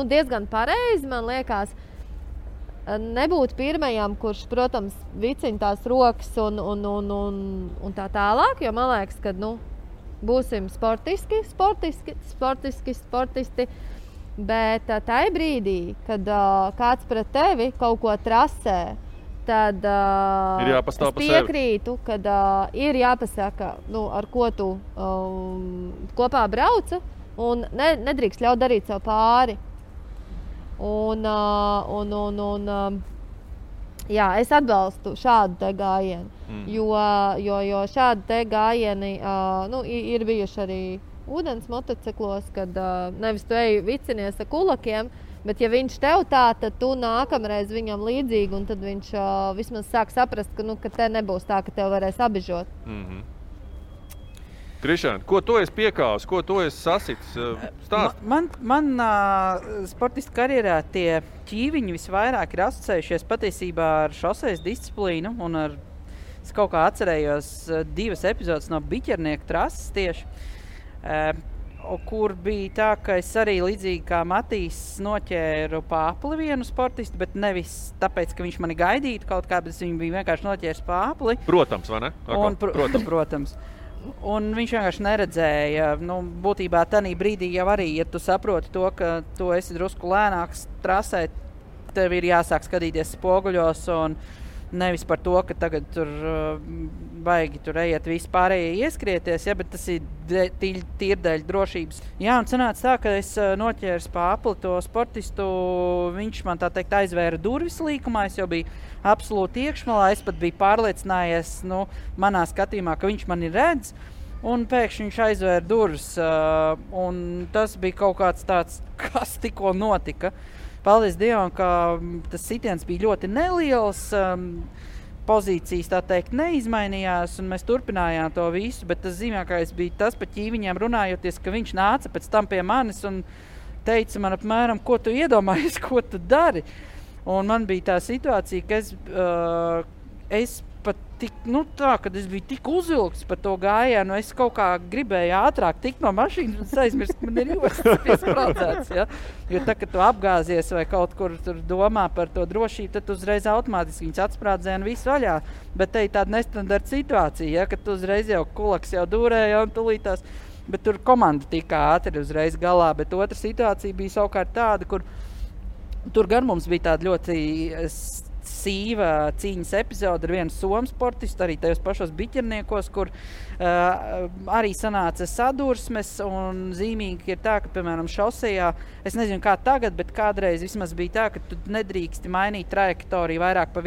diezgan pareizi, man liekas, nebūt pirmajam, kurš, protams, vicina tās rokas un tā tālāk, jo man liekas, ka būsim sportisti, bet tajā brīdī, kad kāds pret tevi kaut ko trasē, tad es piekrītu, kad ir jāpasaka, ar ko tu kopā brauca un nedrīkst ļaut darīt sev pāri. Es atbalstu šādu te gājienu, jo šādi te gājieni ir bijuši arī ūdens motociklos, kad nevis tu eji vicinies ar kulakiem, bet ja viņš tev tā, tad tu nākamreiz viņam līdzīgi, un tad viņš vismaz sāk saprast, ka te nebūs tā, ka tev varēs abižot. Krišāna, ko tu esi piekāvis, ko tu esi sasitis? Stāst. Man sportista karjerā tie ķīviņi visvairāk ir asociējušies patiesībā ar šosejas disciplīnu, un es kaut kā atcerējos 2 epizodes no biķernieka trases tieši, kur bija tā, ka es arī līdzīgi kā Matīs noķēru pāpli vienu sportistu, bet nevis tāpēc, ka viņš mani gaidītu kaut kā, bet viņš bija vienkārši noķēris pāpli. Protams, vai ne? Protams. Un viņš vienkārši neredzēja, būtībā tanī brīdī jau arī, ja tu saproti to, ka tu esi drusku lēnāks trasē, tev ir jāsāk skatīties spoguļos un nevis par to, ka tagad tur baigi tur ejiet visi pārējie ieskrieties, bet tas ir tīri dēļ drošības. Jā, un sanāca tā, ka es noķēru pāpli to sportistu, viņš man tā teikt aizvēra durvis līkumā, es jau biju absolūti iekšmalā, es pat biju pārliecinājies, manā skatījumā, ka viņš mani redz, un pēkšņi viņš aizvēra durvis, un tas bija kaut kāds tāds, kas tikko notika. Paldies Dievam, ka tas sitiens bija ļoti neliels, pozīcijas tā teikt neizmainījās, un mēs turpinājām to visu, bet tas zīmīgākais bija tas pa ķīviņiem runājoties, ka viņš nāca pēc tam pie manis un teica man apmēram, ko tu iedomājies, ko tu dari. Un man bija tā situācija, ka es pat tik, kad es biju tik uzvilkts par to gājienu, es kaut kā gribēju ātrāk tikt no mašīnas un aizmirst, ka man ir jostas piespraudzēts, ja? Jo tā, kad tu apgāzies vai kaut kur tur domā par to drošību, tad uzreiz automātiski viņas atspraudzē un viss vaļā. Bet te ir tāda nestandarta situācija, ja? Kad tu uzreiz jau kulaks jau dūrēja un tulītās, bet tur komanda tika ātri uzreiz galā, bet otra situācija bija savukārt tāda, kur tur gan mums bija tāda ļoti sīva cīņas epizode ar vienu somu sportistu, arī tajos pašos biķerniekos, kur arī sanāca sadursmes, un zīmīgi ir tā, ka, piemēram, šosejā, es nezinu kā tagad, bet kādreiz vismaz bija tā, ka tu nedrīksti mainīt trajektoriju vairāk pa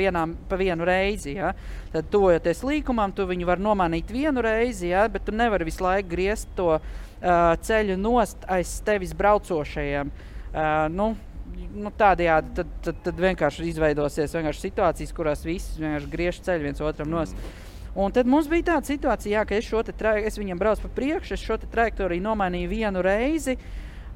vienu reizi, ja? Tad tuvojoties līkumam, tu viņu var nomainīt vienu reizi, ja? Bet tu nevari visu laiku griezt to ceļu nost aiz tevis braucošajiem. Tādējādi tad vienkārši izveidosies situācijas, kurās visi vienkārši griež ceļu viens otram nost. Un tad mums bija tāda situācija, ka es viņam braucu pa priekšu, es šo trajektoriju nomainīju vienu reizi,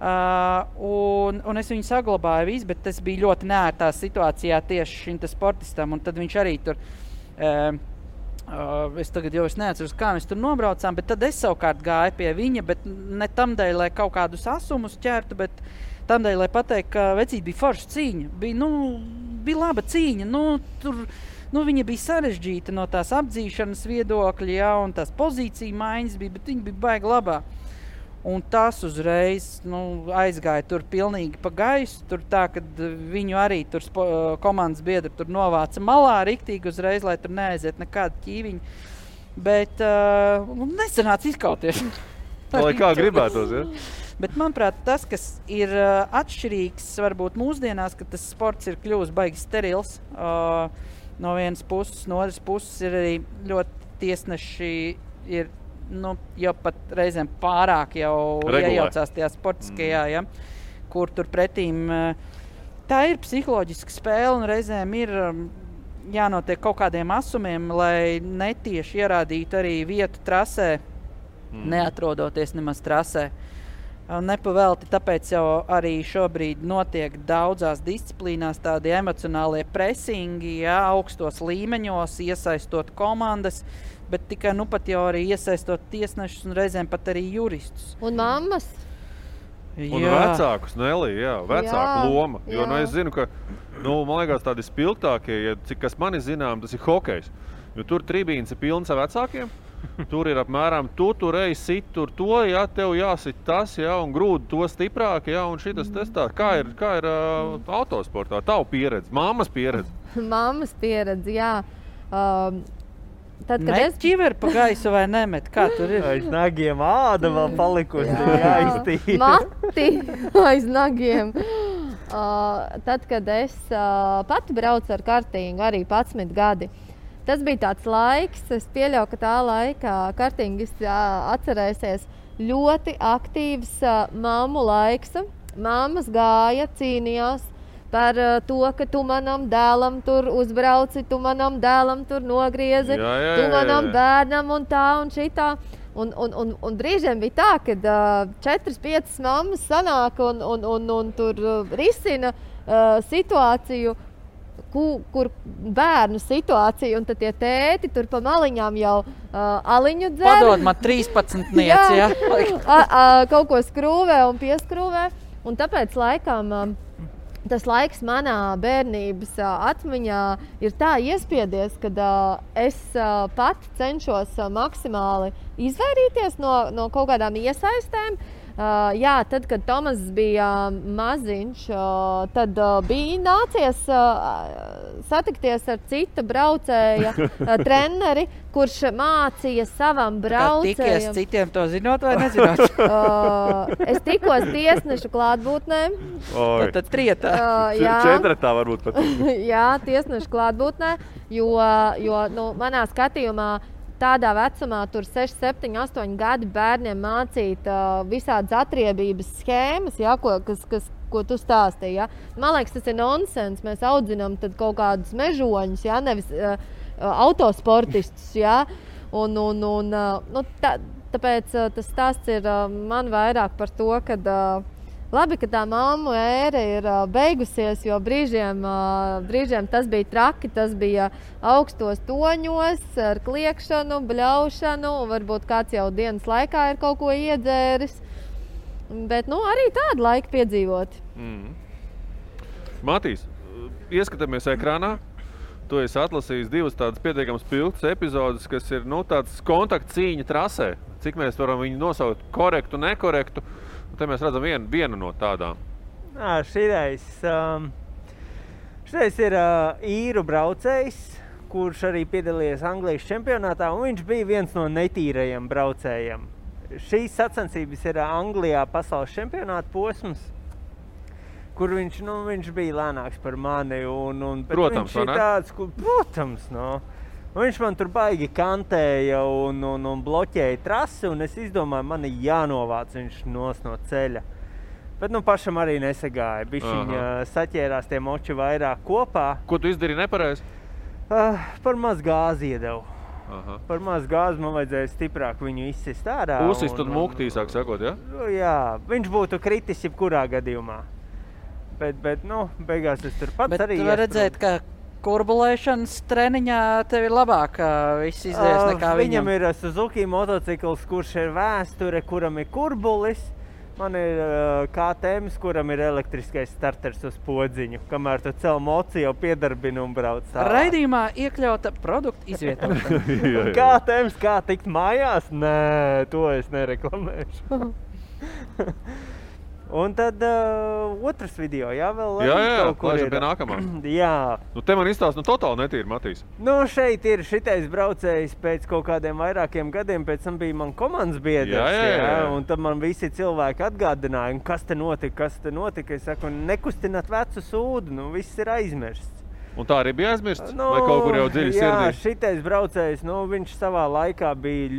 un es viņu saglabāju visu, bet tas bija ļoti neērtā situācijā tieši šim sportistam, un tad viņš arī tur, es tagad jau neatceros, kā mēs tur nobraucām, bet tad es savukārt gāju pie viņa, bet ne tamdēļ, lai kaut kādus asumus ķertu, bet tamdēļ, lai pateikt, ka vecīt bija forša cīņa, bija laba cīņa, viņa bija sarežģīta no tās apdzīšanas viedokļa, ja, un tās pozīcija maiņas bija, bet viņa bija baigi labā. Un tas uzreiz aizgāja tur pilnīgi pa gaisu. Tur tā, kad viņu arī tur komandas biedri tur novāca malā riktīgi uzreiz, lai tur neaiziet nekāda ķīviņa. Bet nesanāca izkauties. Lai kā gribētos, ja? Bet, manuprāt, tas, kas ir atšķirīgs varbūt mūsdienās, ka tas sports ir kļuvis baigi sterils. No vienas puses, no otras puses ir arī ļoti tiesneši ir jau pat reizēm pārāk jau iejaucās tajā sportiskajā, ja, kur tur pretīm tā ir psiholoģiska spēle un reizēm ir jānotiek kaut kādiem asumiem, lai netieši ierādītu arī vietu trasē, neatrodoties nemaz trasē. Nepavelti, tāpēc jau arī šobrīd notiek daudzās disciplīnās tādi emocionālie presingi, ja, augstos līmeņos, iesaistot komandas, bet tikai pat jau arī iesaistot tiesnešus un reizēm pat arī juristus. Un mammas. Un vecākus, Nelī, vecāku loma. Jo, es zinu, ka, man liekas, tādi spilgtākie, cik kas mani zinām, tas ir hokejs. Jo tur tribīns ir pilns ar vecākiem. Tur ir apmēram, tu tur ej, sit tur to, ja, tev jāsit tas, ja, un grūdi to stiprāk, ja, un šitas testā. Kā ir autosportā? Tavu pieredze, mammas pieredze? Mammas pieredze, jā. Tad, met ķiveri pa gaisu vai nemet? Kā tur ir? Aiz nagiem āda vēl palikusi jāiztīra. Mati aiz nagiem. Tad, kad es pati braucu ar kartingu, arī 11 gadi, tas bija tāds laiks, es pieļauju, ka tā laikā kartingis atcerēsies ļoti aktīvs mammu laiks. Mammas gāja, cīnījās par to, ka tu manam dēlam tur uzbrauci, tu manam dēlam tur nogriezi, tu manam bērnam un tā un šitā. Un brīžiem bija tā, kad 4-5 mammas sanāk un tur risina situāciju, kur bērnu situāciju, un tad tie tēti tur pa maliņām jau aliņu dzer. Padod man 13-nieci, ja? Kaut ko skrūvē un pieskrūvē. Un tāpēc laikam tas laiks manā bērnības atmiņā ir tā iespiedies, kad es pati cenšos maksimāli izvairīties no kaut kādām iesaistēm. Jā, tad, kad Tomas bija maziņš, tad bija nācies satikties ar cita braucēja treneri, kurš mācīja savam braucējam. Tikies citiem to zinot vai nezinot? Es tikos tiesnešu klātbūtnē. Tad trietā. Četratā varbūt pat. Jā, tiesnešu klātbūtnē, jo manā skatījumā tādā vecumā, tur 6, 7, 8 gadi bērniem mācīt visādas atriebības schēmas, ja, ko tu stāstīji. Ja. Man liekas, tas ir nonsens. Mēs audzinām tad kaut kādus mežoņus, ja, nevis autosportistus. Ja. Tāpēc tas stāsts ir man vairāk par to, ka labi, ka tā mammu ēra ir beigusies, jo brīžiem tas bija traki, tas bija augstos toņos ar kliekšanu, bļaušanu, un varbūt kāds jau dienas laikā ir kaut ko iedzēris. Bet arī tādu laiku piedzīvot. Matīs, ieskatāmies ekrānā. Tu esi atlasījis 2 tādas pietiekams pilgtas epizodes, kas ir tāds kontaktcīņa trasē. Cik mēs varam viņu nosaukt korektu, nekorektu. Te mēs redzam vienu no tādām. Šireiz ir īru braucējs, kurš arī piedalījies Anglijas čempionātā, un viņš bija viens no netīrajiem braucējiem. Šīs sacensības ir Anglijā pasaules čempionāta posms, kur viņš bija lēnāks par mani. Protams, vai ne? Protams, Viņš man tur baigi kantēja un bloķēja trasi, un es izdomāju, man ir jānovāc viņš no ceļa. Bet pašam arī nesagāja. Bišķiņ saķērās tie moči vairāk kopā. Ko tu izdarīji nepareizi? Par maz gāzi iedevu. Par maz gāzi man vajadzēja stiprāk viņu izsist ārā. Uzsist tad mūktīsāk sakot, ja? Jā, viņš būtu kritis jebkurā gadījumā. Bet beigās es tur pats arī Bet tu var redzēt, ka kurbulēšanas treniņā tev ir labāk viss izdevies nekā viņam. Viņam ir Suzuki motocikls, kurš ir vēsture, kuram ir kurbulis. Man ir KTM, kuram ir elektriskais starters uz podziņu, kamēr tu cel moci jau piedarbini un brauc tālāk. Raidījumā iekļauta produktu izvietošana. KTM, kā tikt mājās? Nē, to es nereklamēšu. Un tad otrs video, jā, vēl Jā, kaut kur laižam ir. pie nākamā. Jā. Nu, te man izstāst, totāli netīri, Matīs. Nu, šeit ir šitais braucējs pēc kaut kādiem vairākiem gadiem, pēc tam bija man komandas biedrs, Jā. un tad man visi cilvēki atgādināja, kas te notika. Es saku, nekustināt vecu sūdu, nu, viss ir aizmirsts. Un tā arī bija aizmirsts? Vai kaut kur jau dziļi sirdī? Jā, šitais braucējs, viņš savā laikā bija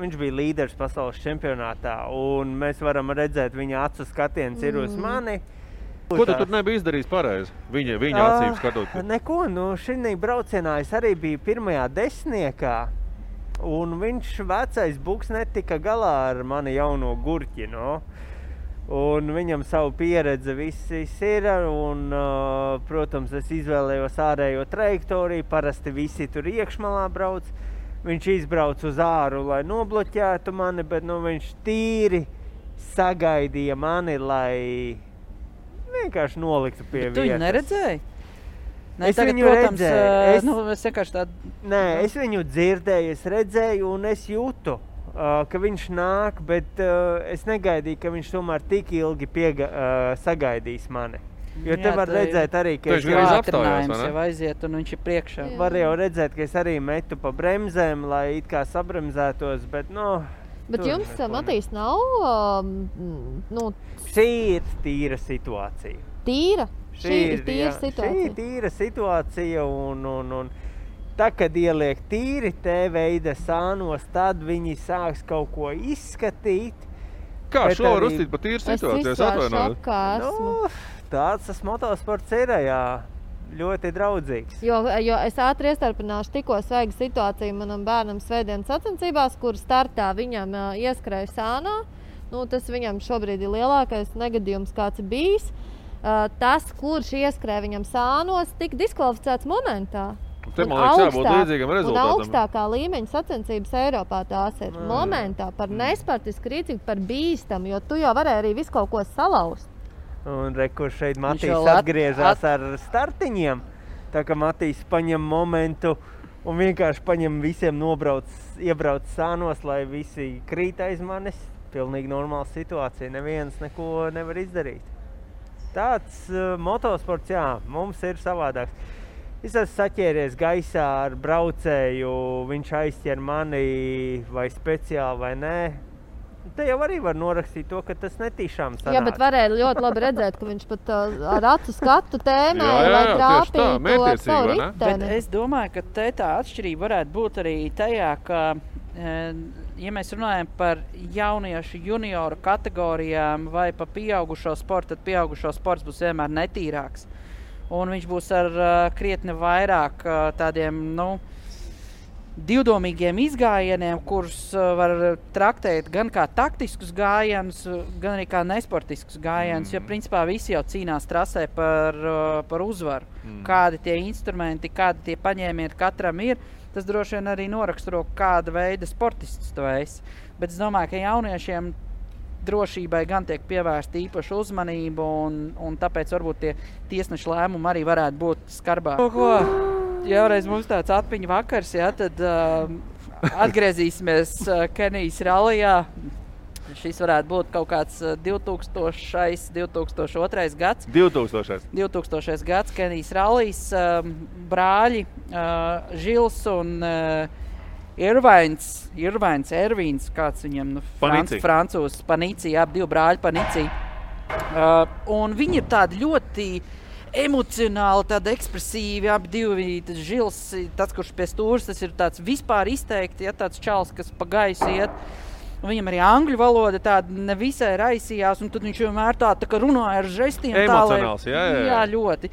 viņš bija līderis pasaules čempionātā, un mēs varam redzēt, viņa acu skatiens ir uz mani. Ko tu tur nebija izdarījis pareizi? Viņa acīm skatot? Neko, šī braucienā es arī biju pirmajā desmitniekā, un viņš vecais buks netika galā ar mani jauno gurķi, Un viņam savu pieredzi viss ir, un, protams, es izvēlējos ārējo trajektoriju, parasti visi tur iekšmalā brauc. Viņš izbrauc uz āru, lai nobloķētu mani, bet viņš tīri sagaidīja mani, lai vienkārši noliktu pie vietas. Tu viņu neredzēji? Ne, Es tagad, viņu protams, redzēju. Es vienkārši tādu... Nē, es viņu dzirdēju, es redzēju un es jūtu, ka viņš nāk, bet es negaidīju, ka viņš tomēr tik ilgi sagaidīs mani. Jo te var redzēt arī, ka viņš ir apstājās, jau aiziet un viņš ir priekšā. Var jau redzēt, ka es arī metu pa bremzēm, lai it kā sabremzētos, bet Bet jums, Matīs, nav... Šī ir tīra situācija. Tīra? Šī ir tīra situācija? Šī ir tīra situācija un tā, kad ieliek tīri T-veida sānos, tad viņi sāks kaut ko izskatīt. Kā šo var uzstīt pa tīru situāciju? Es atvainoju. Tāds tas motosports ir, jā. Ļoti draudzīgs. Jo es ātri iestarpināšu tikko sveigu situāciju manam bērnam svētdienas sacensībās, kur startā viņam ieskrēja sānā. Tas viņam šobrīd ir lielākais negadījums, kāds ir bijis. Tas, kurš ieskrēja viņam sānos, tika diskvalificēts momentā. Te, man liekas, jābūt līdzīgam rezultātam. Un augstākā līmeņa sacensības Eiropā tās ir momentā par nespartisku rīcību, par bīstamu, jo tu jau varēji arī visu kaut ko salauzt. Un kur šeit Matīs atgriežās ar startiņiem. Tā kā Matīs paņem momentu un vienkārši paņem visiem iebrauc sānos, lai visi krīt aiz manis. Pilnīgi normāla situācija, neviens neko nevar izdarīt. Tāds motosports, jā, mums ir savādāks. Es esmu saķēries gaisā ar braucēju, viņš aizķer mani vai speciāli vai nē. Te jau arī var norakstīt to, ka tas netīšām sanāk. Jā, bet varēja ļoti labi redzēt, ka viņš pat ar acu skatu tēmēja, lai trāpītu ar savu riteni. Bet es domāju, ka te tā atšķirība varētu būt arī tajā, ka, ja mēs runājam par jauniešu junioru kategorijām vai pa pieaugušo sportu, tad pieaugušo sports būs vienmēr netīrāks. Un viņš būs ar krietni vairāk tādiem, divdomīgiem izgājieniem, kurus var traktēt gan kā taktiskus gājienus, gan arī kā nesportiskus gājienus, jo principā visi jau cīnās trasē par uzvaru. Kādi tie instrumenti, kādi tie paņēmieni katram ir, tas droši vien arī noraksturo, kāda veida sportistus tu esi. Bet es domāju, ka jauniešiem drošībai gan tiek pievērsta īpaša uzmanība, un tāpēc varbūt tie tiesneša lēmumi arī varētu būt skarbāki. Jāreiz mums tāds atmiņu vakars, tad atgriezīsimies Kenijas rallijā. Šis varētu būt kaut kāds 2002. gads. 2000. gads Kenijas rallijas. Brāļi Žils un Ervīns, kāds viņam, francūzs, Panici, divi brāļi Panici. Un viņi ir tādi ļoti emocionāli, tādi ekspresīvi, abi divi. Žils, tas, kurš pie stūras, tas ir tāds vispār izteikti, tāds čals, kas pa gaisu iet. Un viņam arī angļu valoda tāda nevisai raisījās, un tad viņš vienmēr tā kā runāja ar žestiem. Emocionāls, jā, ļoti.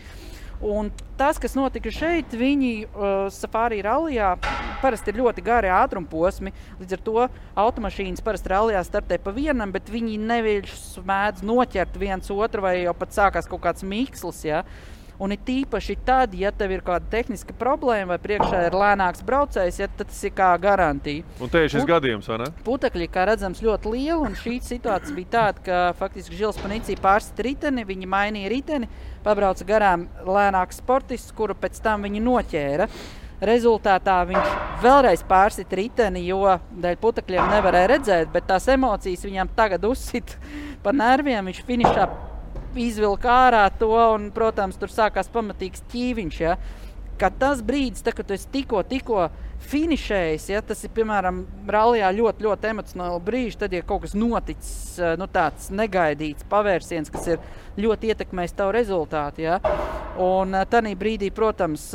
Un tas, kas notika šeit, viņi safari rallijā parasti ir ļoti gari ātrumposmi, līdz ar to automašīnas parasti rallijā startē pa vienam, bet viņi neviļš mēdz noķert viens otru vai jau pat sākās kaut kāds mikslis, ja? Un ir tīpaši tad, ja tev ir kāda tehniska problēma vai priekšā ir lēnāks braucējs, ja, tad tas ir kā garantija. Un te ir šis gadījums, vai ne? Putekļi, kā redzams, ļoti liela, un šī situācija bija tāda, ka faktiski Žils Panici pārsit riteni, viņi mainīja riteni, pabrauca garām lēnāks sportists, kuru pēc tam viņi noķēra. rezultātā viņš vēlreiz pārsit riteni, jo dēļ putekļiem nevarēja redzēt, bet tās emocijas viņam tagad uzsit pa nerviem. Viņš finišā izvilka ārā to un, protams, tur sākās pamatīgs ķīviņš, ja. Kad tas brīdis, kad tu esi tikko finišējis, ja, tas ir, piemēram, rallijā ļoti emocionāli brīži, tad, ja kaut kas noticis, tāds negaidīts pavērsiens, kas ir ļoti ietekmējis tavu rezultātu, ja. Un tanī brīdī, protams,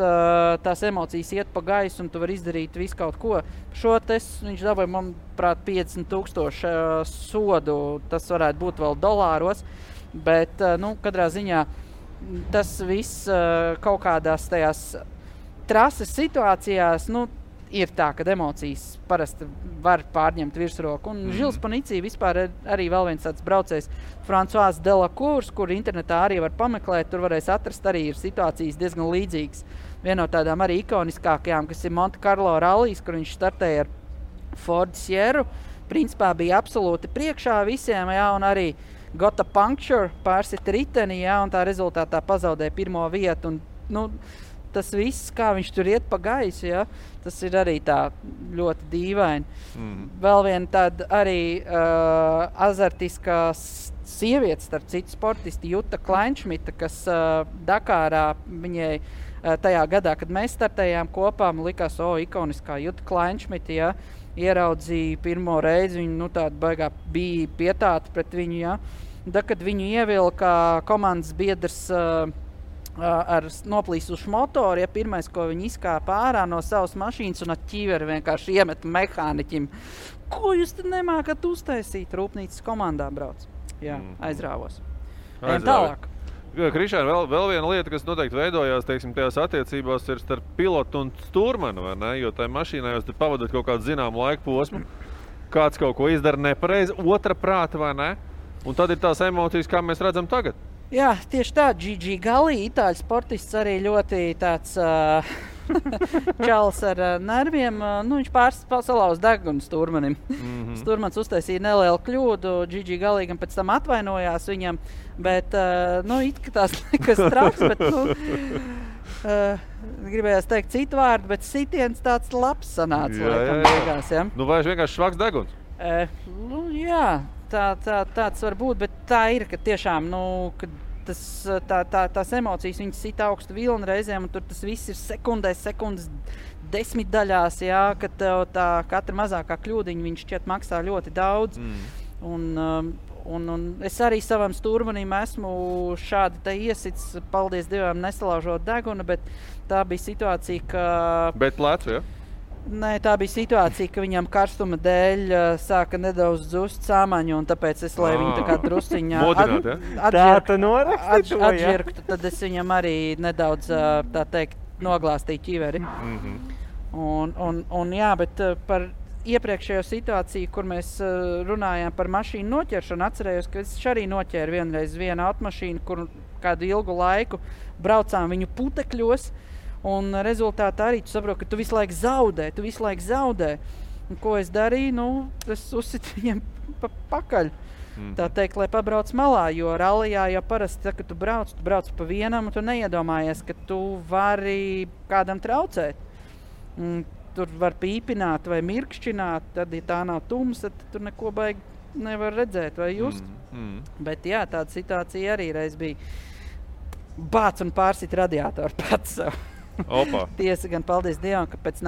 tās emocijas iet pa gaisu un tu vari izdarīt visu kaut ko. Šo viņš dabūja, manuprāt, 50,000 sodu, tas varētu būt vēl dolāros, bet, katrā ziņā tas viss kaut kādās tajās trases situācijās, ir tā, kad emocijas parasti var pārņemt virsroku. Un Žils Panicī vispār arī vēl viens tāds braucējs, Francois Delacours, kur internetā arī var pameklēt, tur varēs atrast arī ir situācijas diezgan līdzīgas. Viena no tādām arī ikoniskākajām, kas ir Monte Carlo rallijas, kur viņš startēja ar Ford Sierru, principā bija absolūti priekšā visiem, jā, un arī got a puncture, pārsita riteni, jā, un tā rezultātā pazaudēja pirmo vietu. Un, tas viss, kā viņš tur iet pa gaisu, jā, tas ir arī tā ļoti dīvaini. Vēl viena tāda arī azartiskā sieviete, starp citu sportisti, Jutta Kleinšmita, kas Dakārā viņai tajā gadā, kad mēs startējām kopā, man likās, ikoniskā Jutta Kleinšmita, jā, ieraudzīja pirmo reizi, viņu tāda baigā bija pietāta pret viņu, jā. Da, kad viņu ievilka komandas biedrs ar noplīsušu motoru, ja pirmais, ko viņi izkāpa ārā no savas mašīnas un ar ķīveri vienkārši iemet mehāniķim. Ko jūs tad nemākat uztaisīt? Rūpnīcas komandā brauc. Jā, aizrāvos. Tālāk. Krišāna, vēl viena lieta, kas noteikti veidojās, teiksim, tajās attiecībās ir starp pilotu un stūrmanu, vai ne? Jo tajā mašīnā jūs pavadot kaut kādu zināmu laiku posmu, kāds kaut ko izdara nepareizi, otra prāta, vai ne? Un tad ir tās emocijas, kā mēs redzam tagad. Jā, tieši tā, Gigi Galli, itāļu sportists, arī ļoti tāds čalis ar nerviem. Viņš salauza degunu stūrmanim. Stūrmans uztaisīja nelielu kļūdu, Gigi Galli gan pēc tam atvainojās viņam, bet, it kā tās nekas traks, bet, gribējās teikt citu vārdu, bet sitiens tāds labs sanāca, laikam, beigās, ja? Vai vienkārši švaks deguns? Jā. Tāds var būt, bet tā ir, ka tiešām, kad tās emocijas viņas sit augstu vilni reizēm, un tur tas viss ir sekundes desmitdaļās, jā, kad tev tā katra mazākā kļūdiņa viņš šķiet maksā ļoti daudz. Un es arī savam stūrmanim esmu šādi te iesits, paldies Dievam, nesalaužot degunu, bet tā bija situācija, ka... Bet plecu, ja? Nē, tā bija situācija, ka viņam karstuma dēļ sāka nedaudz dzust sāmaņu, un tāpēc es, lai viņu tā kā drusciņā atžirktu, tad es viņam arī nedaudz, tā teikt, noglāstīju ķiveri. Un jā, bet par iepriekšējo situāciju, kur mēs runājām par mašīnu noķeršanu, atcerējos, ka es arī noķēru vienreiz vienu automašīnu, kur kādu ilgu laiku braucām viņu putekļos, un rezultātā arī tu saproti, ka tu visu laiku zaudē. Un ko es darīju? Es uzsitu viņiem pakaļ. Tā teikt, lai pabrauc malā, jo rallijā jau parasti, kad tu brauc pa vienam, un tu neiedomājies, ka tu vari kādam traucēt. Tur var pīpināt vai mirkšķināt, tad, ja tā nav tums, tad tur neko baigi nevar redzēt vai just. Bet jā, tāda situācija arī reiz bija. Bāc un pārsit radiātoru pats sev. Tiesa gan paldies Dievam, ka pēc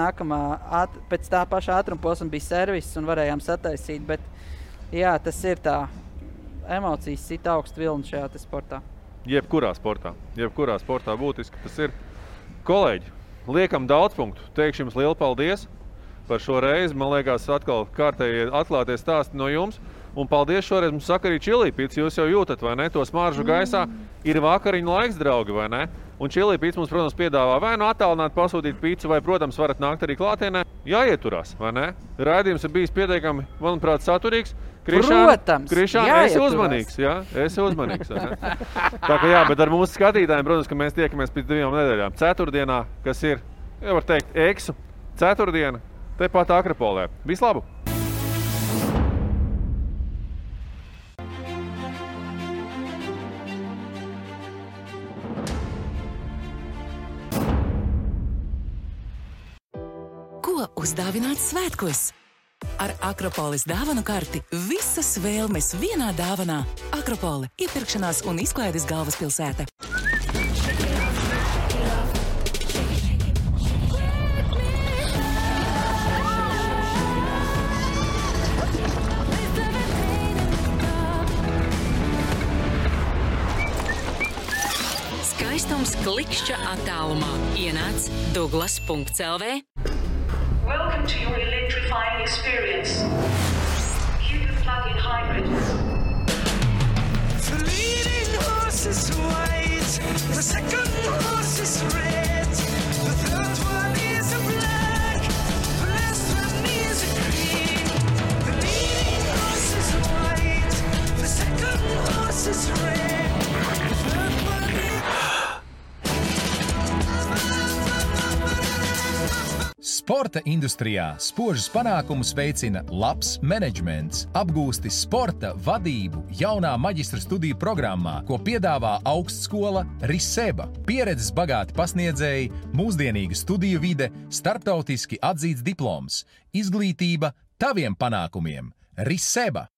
tā paša ātruma posma bija serviss un varējām sataisīt, bet jā, tas ir tā emocijas sit augstu vilni šajā te sportā. Jebkurā sportā būtiski tas ir. Kolēģi, liekam daudz punktu. Teikšu jums lielu paldies par šo reizi. Man liekas, atkal kārtēji atklātie stāsti no jums. Un paldies šoreiz mums saka arī Čilīpīts. Jūs jau jūtat, vai ne? To smaržu gaisā ir vakariņu laiks, draugi, vai ne? Un Čilīpīts mums, protams, piedāvā vai attālināt pasūtīt pīcu, vai, protams, varat nākt arī klātienē. Jāieturās, vai ne? Raidījums ir bijis pietiekami, manuprāt, saturīgs. Krišāna, esi uzmanīgs, jā? Esi uzmanīgs, vai ne? Tā kā jā, bet ar mūsu skatītājiem, protams, ka mēs tiekamies pēc 2 nedēļām. Ceturtdienā, kas ir, jau var teikt, eksu. Ceturtdiena, tepat Akropolē. Vislabu! uzdāvināt svētkos? Ar Akropoles dāvanu karti visas vēlmes vienā dāvanā. Akropole – iepirkšanās un izklaides galvaspilsēta. Skaistums klikšķa attālumā. Ienāc Douglas.lv. Welcome to your electrifying experience. Hugo plug-in hybrid. The leading horse is white, the second horse is red, the third one is a black, the last one is a green. The leading horse is white, the second horse is red, the third one is... Sporta industrijā spožus panākumus veicina labs menedžments, apgūsti sporta vadību jaunā maģistra studiju programmā, ko piedāvā augstskola Riseba. Pieredzes bagāti pasniedzēji, mūsdienīga studiju vide, starptautiski atzīts diploms, izglītība taviem panākumiem. Riseba.